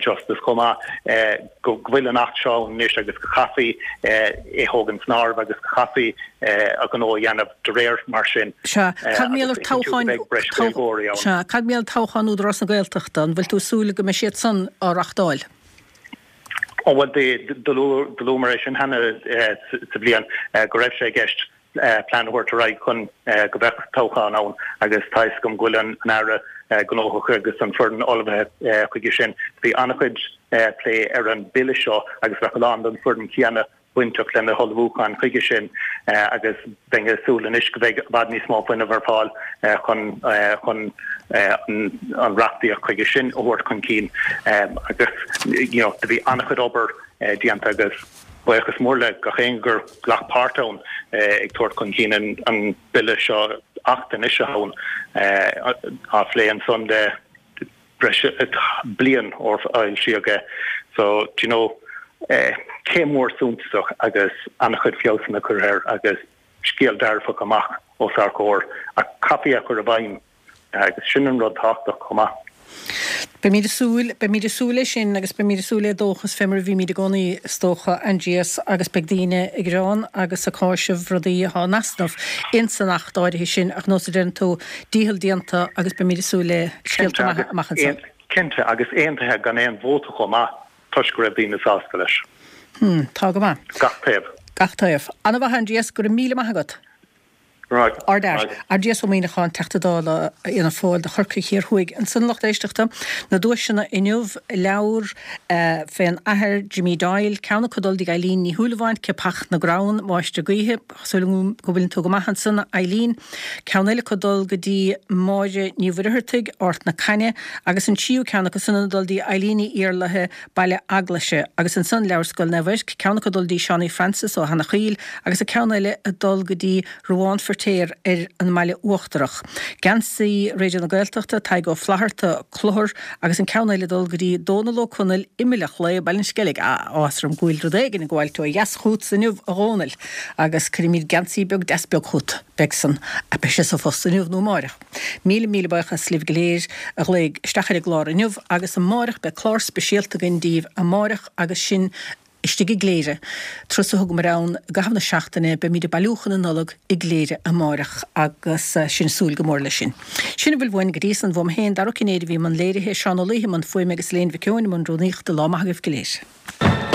[SPEAKER 6] Justice chomh maith go bhfuil an Acht seo ann anois agus go chaithfí é thógaint san áireamh agus go chaithfí a ghnó a dhéanamh de réir mar sin.
[SPEAKER 1] Sea. Cad mar gheall ar toghcháin, sea, cad mar gheall toghchán Údarás na Gaeltachta, an bhfuil tú ag súil go mbeidh siad san á reachtáil?
[SPEAKER 6] Ó bhuel, do luamar é sin cheana sa bhliain go raibh sé i gceist plean a thabhairt ar aghaidh chun go mbeadh toghchán ann agus tá fhios agam go bhfuil an Aire gnóthach agus an foireann ullmhaithe chuige sin. Bhí an-chuid plé ar an bille seo agus bheadh a lán den foireann chéanna bainteach lena hullmhúchán chuige sin agus bheinn ag súil anois go mbeidh i bhfad níos mó fuinnimh ar fáil chun chun an reachtaíocht chuige sin a thabhairt chun cinn agus you know do bhí an-chuid obair déanta agus buíochas mór le gach éinne gur ghlac páirt ann ag tabhairt chun cinn an bille seo Acht anois atá ann á phlé ansan le breis bliain ó foilsíodh é. So, do you know, céim mhór suntasach agus an-chuid feabhsanna curtha air agus scéal dearfach amach os ár gcomhair ach caithfí é a chur i bhfeidhm agus sin an rud tábhachtach chomh maith.
[SPEAKER 1] Beimid ag súil, beimid ag súil leis sin agus beimid ag súil le dóchas fé mar a bhímid i gcónaí is dócha, Aindrias, agus beidh daoine ag gearán agus ag cáiseamh rudaí atá in easnamh ins an Acht áirithe sin ach nós a deireann tú, dícheall déanta agus beimid ag súil le scéalta maithe amach anseo.
[SPEAKER 6] Cinnte, agus aontaithe gan aon vóta chomh maith toisc go raibh daoine sásta leis.
[SPEAKER 1] Hmm, tá go maith.
[SPEAKER 6] Gach taobh.
[SPEAKER 1] Gach taobh. Ana-mhaith Aindrias, go raibh míle maith agat.
[SPEAKER 6] Right.
[SPEAKER 1] Ard-fhear. Aindrias Ó Muíneacháin, Teachta Dála Fhianna Fáil do Chorcaigh Thiar Thuaidh. Ansan a lucht éisteachta, na duaiseanna inniu, leabhar fén Athair Jimmy Doyle, ceann acu ag dul dtí Eileen Ní Shúilleabháin, Ciapach na gCrann, Máistir Gaoithe, Súil agam go bhfuileann tú go maith ansan, a Eileen. Ceann eile acu ag dul go dtí Máire Ní Mhuircheartaigh, Ard na Caithne, agus an tríú ceann acu san ag dul dtí Eileen Ní Iarlaithe, Baile Eaglaise. Agus ansan leabhar Scoil Naomh Eirc, ceann acu ag dul dtí Seánie Francis ó Eanach Mhaoil agus an ceann eile ag dul go dtí Ruadhán Feirtéar ar an mBaile Uachtarach. Geansaí Raidió na Gaeltachta, Tadhg Ó Flatharta, Clochar, agus an ceann eile ag dul go dtí Dónal Ó Conaill, Imill an Chlaí, Baile an Sceilg. Ah, áthas orm go bhfuil rud éigin ag gabháilt ó dheas chughatsa inniu, a Dhónaill, agus cuirfimid geansaí beag deas beag chugat. Beidh san, beidh sé sa phost inniu nó amáireach. Míle, míle buíochas libh go léir a ghlaoigh isteach ar an gclár inniu agus amáireach beidh clár speisialta againn daoibh amáireach agus sinn istigh i gCléire. Turas a thugamar ann i gcaitheamh na seachtaine, beimid ag bailiúchán na Nollag i gCléire amáireach agus sinn ag súil go mór leis sin. Sin a bhfuil uainn go dtí san, uaim féin, Dara Ó Cinnéide a bhí i mbun léirithe, Seán Ó Laoithe i mbun fuaime agus Elaine Mhic Eoin i mbun rúnaíochta. Lá maith agaibh go léir.